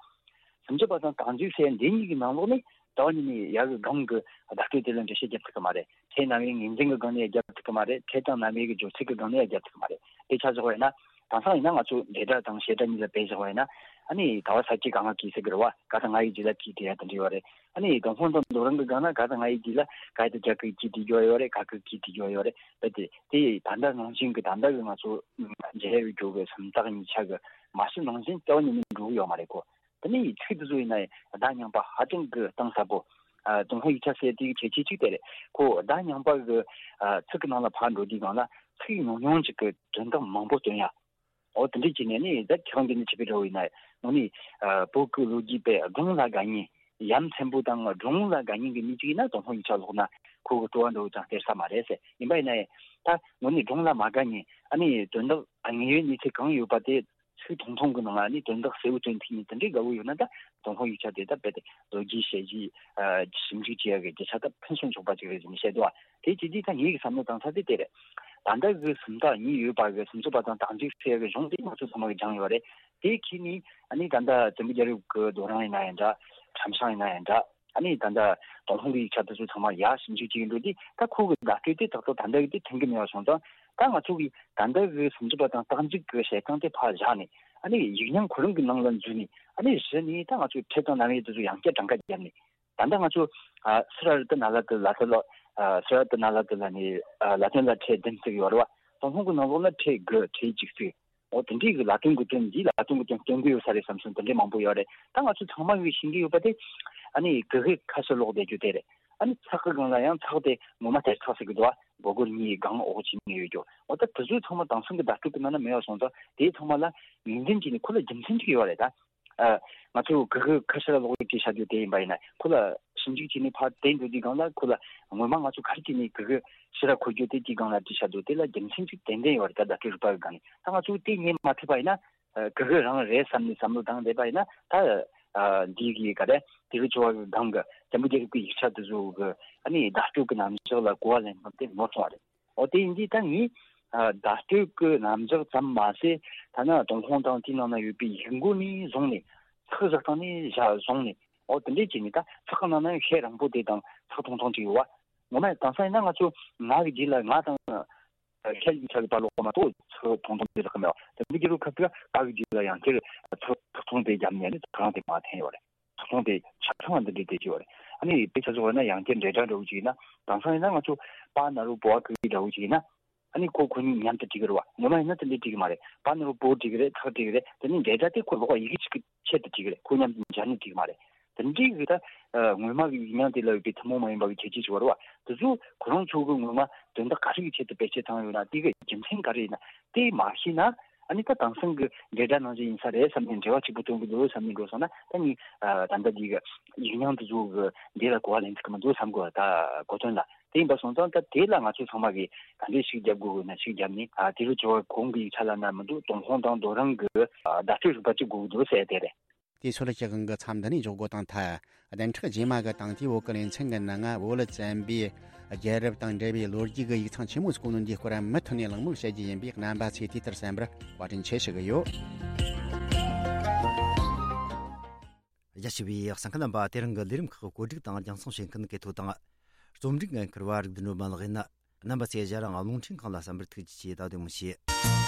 སུམ་ཅུ་པ་དང་རྟགས་འཇུག་ཟེར་འདི་གཉིས་ཀྱི་ནང་ལོགས་ནས་ད་བ་ཉིད་ནས་ཡ་གི་སྒང་གི་བརྡ་སྤྲོད་དེ་ལ་འགྲེལ་བཤད་རྒྱབ་ཐུབ་ཀྱི་མ་རེད། ཕྲད་རྣམ་དབྱེ་ངོས་འཛིན་གྱི་སྒང་ནས་རྒྱབ་ཐུབ་ཀྱི་མ་རེད། ཕྲད་དང་རྣམ་དབྱེ་གི་སྦྱོར་ཚིག་གི་སྒང་ནས་རྒྱབ་ཐུབ་ཀྱི་མ་རེད། དཔེ་ཆ་བཞག་པ་ཡིན་ན། དེང་སང་ཡིན་ན་ང་ཚོ་འབྲེལ་སྒྲ་དང་བྱེད་སྒྲ་གཉིས་ལ་དཔེ་བཞག་པ་ཡིན་ན། ཨ་ནི་ག་བ་ས་ཀྱི་ག་ང་གི་ཟེར་གི་རེད་བ། ག་དང་ང་ཡི་རྗེས་ལ་གི་དེ་ཡ་དེ་འདྲ་ཡོད་རེད། ཨ་ནི་ཏུན་ཧོང་དང་རྡོ་རིང་གི་སྒང་ན་ག་དང་ང་ཡི་རྗེས་ལ་ག་ཡི་དེ་རྒྱ་གི་གི་དེ་རྒྱུ་ཡོད་རེད། ག་གི་གི་དེ་རྒྱུ་ཡོད་རེད། ད་དེ་དེ་ད་ལྟ་ནང་བཞིན་གི་ད་ལྟ་གི་ང་ཚོ་འབྲེལ་ཡོད་རྒྱུ་གི་སུམ་རྟགས་གཉིས་ཆ་གི་མ་ཕྱི་ནང་བཞིན་ལྟ་བ་ཉིད་ནས་འགྲོ་གི་ཡོད་མ་རེད་གོ། དེ་ནས་ཚིག་དེ་ཚོ་ཡིན་ན་བརྡ་རྙིང་པ་ཧ་ཅང་གི་གཏིང་ཟབ་པོ། ཨ། ཏུན་ཧོང་ཡིག་ཆ་ཟེར་དེའི་གལ་ཆེ་གཅིག་དེ་རེད། ཁོ་བརྡ་རྙིང་པ་གི། ཨ། ཚིག་གི་ནང་ལ་ཕར་འགྲོ་དུས་སྒང་ལ་ཚིག་ཉུང་ཉུང་ཅིག་གི་དོན་དག་མང་པོ་སྟོན་ཡ། འོ་དེ་འདྲས་བྱས་ནས་ནི་ད་ཁྱེད་རང་གིས་ནི་བྱས་པའི་འདྲ་བོ་ཡིན་ན་ནི་ཨ་བོད་ཀྱི་ལོ་རྒྱུས་པས་སྒྲུང་ལ་དགའ་མཁན། ཡ་མཚན་པོ་དང་སྒྲུང་ལ་དགའ་མཁན་གྱི་མི་གཅིག་ཡིན་ན་ཏུན་ཧོང་ཡིག་ཆ་ཀློག་ན་ཁོ་གི་སྤྲོ་བ་འདྲ་བོ་ཅང་སྟེར་ས་མ་རེད་ཟེར། ཡིན་པ་ཡིན་ན་ཡང་ད་དངོས་གནས་སྒྲུང་ལ་མ་དགའ་མཁན། ཨ་ནི་དོན་དག་དངོས་ཡོད་གནས་ཚུལ་གང་ཡོད་པ་དེ་ཚིག་ཐུང་ཐུང་གི་ནང་ལ་ནི་དོན་དག་གསལ་བོ་སྟོན་ཐུབ་མཁན་དེ་འདྲའི་དགའ་བོ་ཡོད་ན་ད་ཏུན་ཧོང་ཡིག་ཆ་དེ་ད་རྦད་དེ་ལོ་རྒྱུས་དཔྱད་གཞི་ཨ་ཞིབ་འཇུག་བྱེད་ཡག་གི་རྒྱུ་ཆ་ད་ཕུན་སུམ་ཚོགས་པ་ཅིག་རེད་ཟེར་ནས་བཤད་འདུག་ཨ། དེ་བྱས་དུས་ད་ངེད་ཀྱི་བསམ་བློ་བཏང་ས་དེ་དེ་རེད། ད་ལྟ་གི་སུམ་རྟགས་གཉིས་ཡོད་པ་གི་སུམ་ཅུ་པ་དང་རྟགས་འཇུག་ཟེར་ཡག་གི་གཞུང་དེ་ང་ཚོ་ཚང་མ་གིས་སྦྱངས་ཡོད་རེད། དེ་ཁྱེར་ནས་ཨ་ནི་ད་ལྟ་བཙན་པོ་རྒྱལ་རབས་ཀྱི་རྡོ་རིང་ཡིན་ན་ཡང་འདྲ། ཁྲམ་ཤང་ཡིན་ན་ཡང་འདྲ། ཨ་ནི་ད་ལྟ་ཏུན་ཧོང་གི་ཡིག་ཆ་དེ་ཚོ་ཚང་མ་ཡར་ཞིབ་འཇུག་བྱེད་ཀྱི་འགྲོ་དུས་ད་ཁོ་གི་བརྡ་སྤྲོད་དེ་ཏག་ཏག་ད་ལྟ་གི་དེ་མཐུན་གྱི་མེད་པ་སོང་ཙང་། ད་ང་ཚོ་གིས་ད་ལྟ་གི་སུམ་ཅུ་པ་དང་རྟགས་འཇུག་གི་བཤད་སྟངས་དེ་ཕར་བཞག་ནས། ཨ་ནི་ཡིག་རྙིང་ཁོ་རང་གི་ནང་ལ་འཛུལ་ནས། ཨ་ནི་གཞི་ནས་ད་ང་ཚོས་ཁྲིད་སྟངས་ནམ་ཡང་དེ་ཚོ་ཡང་བསྐྱར་གྲངས་ཀ་བརྒྱབ་ནས། ད་ལྟ་ང་ཚོ་ཨ་སི་ར་རི་ཏི་ན་ལ་ཏི་ལ་ཏི་ལ། ཨ་སི་ར་རི་ཏི་ན་ལ་ཏི་ལ་ནི་ཨ་ལ་དོན་ལ་ཕྲད་བདུན་བརྩི་གི་ཡོད་རེད་བ། ཏུན་ཧོང་གི་ནང་ལོགས་ལ་ཕྲད་དགུ་ཕྲད་གཅིག་བརྩི། འོ་དེ་འདྲའི་གི་ལ་དོན་གི་དོན་འདི་ལ་དོན་གི་དོན་སྟོན་གི་ཡོད་ས་རེད་བསམ་སོང་། དེ་འདྲའི་མང་པོ་ཡོད་རེད། ད་ང་ཚོ་ཚང་མ་གིས་ཤེས་ཀྱི་ཡོད་པ་དེ། ཨ་ནི་གི་གུ་ཁ་ཤས་ཀློག་བསྡད་རྒྱུ་དེ་རེད། ཨ་ནི་ཚེག་གི་སྒང་ལ་ཡང་ཚེག་དེ་ངོ་མ་དེར་ཚེག་ཟེར་གི་འདུག་བ། སྒོར་སྒོར་གཉིས་སྒང་འོག་ཅིག་ནས་ཡོད་རྒྱུ། འོ་ད་དེ་ཚོ་ཚང་མ་དེང་སང་གི་བརྡ་སྤྲོད་གི་ནང་ན་མེད་པ་སོང་ཙང་། དེ་ཚང་མ་ལ་ངོས་འཛིན་བྱས་ནས་ཁོ་ལ་རྒྱུ་མཚན་ཅིག་ཡོད་རེད་ད། ཨ། ང་ཚོས་གི་གུ་ཁ་ཤས་ཀློག་བྲིས་བྱ་རྒྱུ་དེ་ཡིན་པ་ཡིན་ན། ཁོ་ལ་ཞིབ་འཇུག་བྱས་ནས་ཕར་བལྟས་འགྲོ་དུས་སྒང་ལ། ཁོ་ལ་ངོ་མ་ང་ཚོ་ག་རེ་བྱས་ནས་གི་གུ་ཕྱི་ར་འཁོར་རྒྱུ་དེ་དེའི་སྒང་ལ་བྲིས་བྱ་རྒྱུ་དེ་ལ་རྒྱུ་མཚན་ཅིག་ཏན་ཏན་ཡོད་རེད་ད། བརྡ་སྤྲོད་རིག་པ་གི་སྒང་ནས། ད་ང་ཚོས་དེ་རྙེད་མ་ཐུབ་པ་ཡིན་ན། ཨ། གི་གུ་རང་རེད་བསམ་ནས་བསམ་བློ་བཏང་བསྡད་པ་ཡིན་ན། ད། ཨ། འདི་གི་ག་རེ། དེ་གི་ཇོ་བོ་གི་སྒང་གི་བཙན་པོ་རྒྱལ་རབས་ཀྱི་ཡིག་ཆ་དེ་ཚོ་གི། ཨ་ནི་བརྡ་སྤྲོད་ཀྱི་རྣམ་གཞག་ལ་གོ་བ་ལེན་སྟངས་དེ་ནོར་སོང་བ་རེད། འོ་དེ་ཡིན་དུས་ད་ངས། ཨ། བརྡ་སྤྲོད་ཀྱི་རྣམ་གཞག་ཙམ་མ་ཟད། ཐ་ན་ཏུན་ཧོང་དང་དེའི་ནང་ན་ཡོད་པའི་ཡིག་མགོ་ནས་བཟུང་ནས། ཚེག་བཞག་སྟངས་ནས་བཞག་བཟུང་ནས། འོ་དེ་འདྲས་བྱས་ནས། ད་ཚེག་གི་ནང་ན་ཡང་ཤད་རིང་པོ་དེ་དང་ཚེག་ཐུང་ཐུང་ཅིག་ཡོད་བ། ངོ་མ་དེང་སང་ཡིན་ན་ང་ཚོ་ང་གི་རྗེས་ལ། ང་དང་ཁྱེད་ཀྱི་ཆ་གི་བར་ལོགས་མ་གཏོགས་ཚེག་ཐུང་ཐུང་དེ་ལ་ཁ་མེད་བ། དེ་འདྲས་ཀྱི་རུ་ཁ་ཐུག་ག་གི་རྗེས་ལ་ཡང་ཁྱེད་ཚེག་ཐུང་དེ་བརྒྱབ་ནས་ནི་ཚེག་རིང་དེ་མར་འཐེན་ཡོད་རེད། ཚོང་དེ་ཆ་ཚང་བ་འདི་འདྲའི་དེ་ཅིག་ཡོད་རེད། ཨ་ནི་དཔེ་ཆ་བཞག་ན་ཡང་བསྐྱར་འབྲེལ་སྒྲ་འདྲ་བོ་ཅིག་ཡིན་ན། དེང་སང་ཡིན་ན་ང་ཚོ་པ་ན་རོ་བོ་བ་གི་འདྲ་བོ་ཅིག་ཡིན་ན། ཨ་ནི་ཁོ་ཁོ་གཉིས་མཉམ་དུ་བྲིས་ཀྱི་རེད་བ། ངོ་མ་ཡིན་ན་དེ་འདྲའི་བྲིས་ཀྱི་མ་རེད། པ་ན་རོ་བོ་བྲིས་ཀྱི་རེད། ཚེག་བྲིས་ཀྱི་རེད། དེ་ནི་འབྲེལ་སྒྲ་དེ་ཁོ་ལོགས་ཡི་གེ་གཅིག་གི་ཆེད་དུ་བྲིས་ཀྱི་རེད། ཁོ་མཉམ་དུ་སྦྱར་ནས་བྲིས་ཀྱི་མ་རེད། དེ་འདྲའི་གི་ད་ངོ་མ་གི་ཡིག་རྙིང་དེ་ལ་ཡོད་པའི་ཐུན་མོང་མ་ཡིན་པ་གི་ཁྱད་ཆོས་ཅིག་ཡོད་རེད་བ། དེ་ཚོ་ཁོ་རང་ཚོ་གི་ངོ་མ་དོན་དག་ག་རེ་གི་ཆེད་དུ་བེད་སྤྱོད་བཏང་ཡོད་ན། དེ་གི་རྒྱུ་མཚན་ག་རེ་ཡིན་ན། དེ་མ་ཤེས་ན། ཨ་ནི་ད་དེང་སང་གི་འབྲེལ་སྒྲ་ནང་བཞིན་ཡིན་ས་རེད་བསམ་ནས། འབྲེལ་བ་གཅིག་པུ་སྟོན་གི་འདུག་བསམ་ནས་འགྲོ་སོང་ན། ད་ནི་ཨ་ད་ལྟ་འདི་གི་ཡིག་རྙིང་དེ་ཚོ་གི་འདི་ལ་གོ་བ་ལེན་ཐུབ་ཀྱི་མི་འདུག་བསམ་གི། ད་གོ་དོན་ལ་དེ་ཡིན་པ་སོང་ཙང་། ད་དེ་ལ་ང་ཚོ་ཚང་མ་གིས་ག་འདྲས་ཤིག་རྒྱབ་དགོས་ན་ཤིག་རྒྱབ་ནས། ཨ་དེ་རུ་ཇོ་བོ་གོང་གི་ཡིག་ཆ་ལ་ན་མི་འདུག་ཏུན་ཧོང་དང་རྡོ་རིང་གི་ཨ་བརྡ་སྤྲོད་རིག་པ་གཅིག་དགོས་ཀྱི་འདུག་ཟེར་དེ་རེད། དེ་ཚོ་ལ་ཞིག་གང་གི་མཚམས་འདི་ནས་འཇོག་དགོས་དང་ཐལ། བདུན་ཕྲག་རྗེས་མ་གི་དང་དེའི་བོད་ཀྱི་ལེ་ཚན་གྱི་ནང་ང་བོད་ལ་བཙན་པོའི་རྒྱལ་རབས་དང་འབྲེལ་བའི་ལོ་རྒྱུས་ཀྱི་ཡིག་ཚང་ཆེན་མོ་ཟིག་གོ་ནོ་འདིའི་སྐོར་མུ་མཐུད་ནས་གླེང་མོལ་བྱེད་རྒྱུ་ཡིན་པས། རྣམ་པ་ཚོས་དུས་ལྟར་གསན་པར་བཀའ་དྲིན་ཆེ་ཞུ་གི་ཡོད། རྒྱ་ཆེ་བའི་གསན་མཁན་རྣམ་པ། དེ་རིང་གི་ལས་རིམ་ཁག་གོ་སྒྲིག་དང་རྒྱང་སྲིང་བྱེད་མཁན་གལ་ཐོ་དང་རྩོམ་སྒྲིག་འགན་འཁུར་བ་རིག་ལྡན་སྒྲོལ་མ་ལགས་ཡིན། རྣམ་པ་ཚོས་ཞལ་རང་རླུང་འཕྲིན་ཁང་ལ་གསན་པར་ཐུགས་རྗེ་ཆེ། ད་དུང་མི་བྱེད།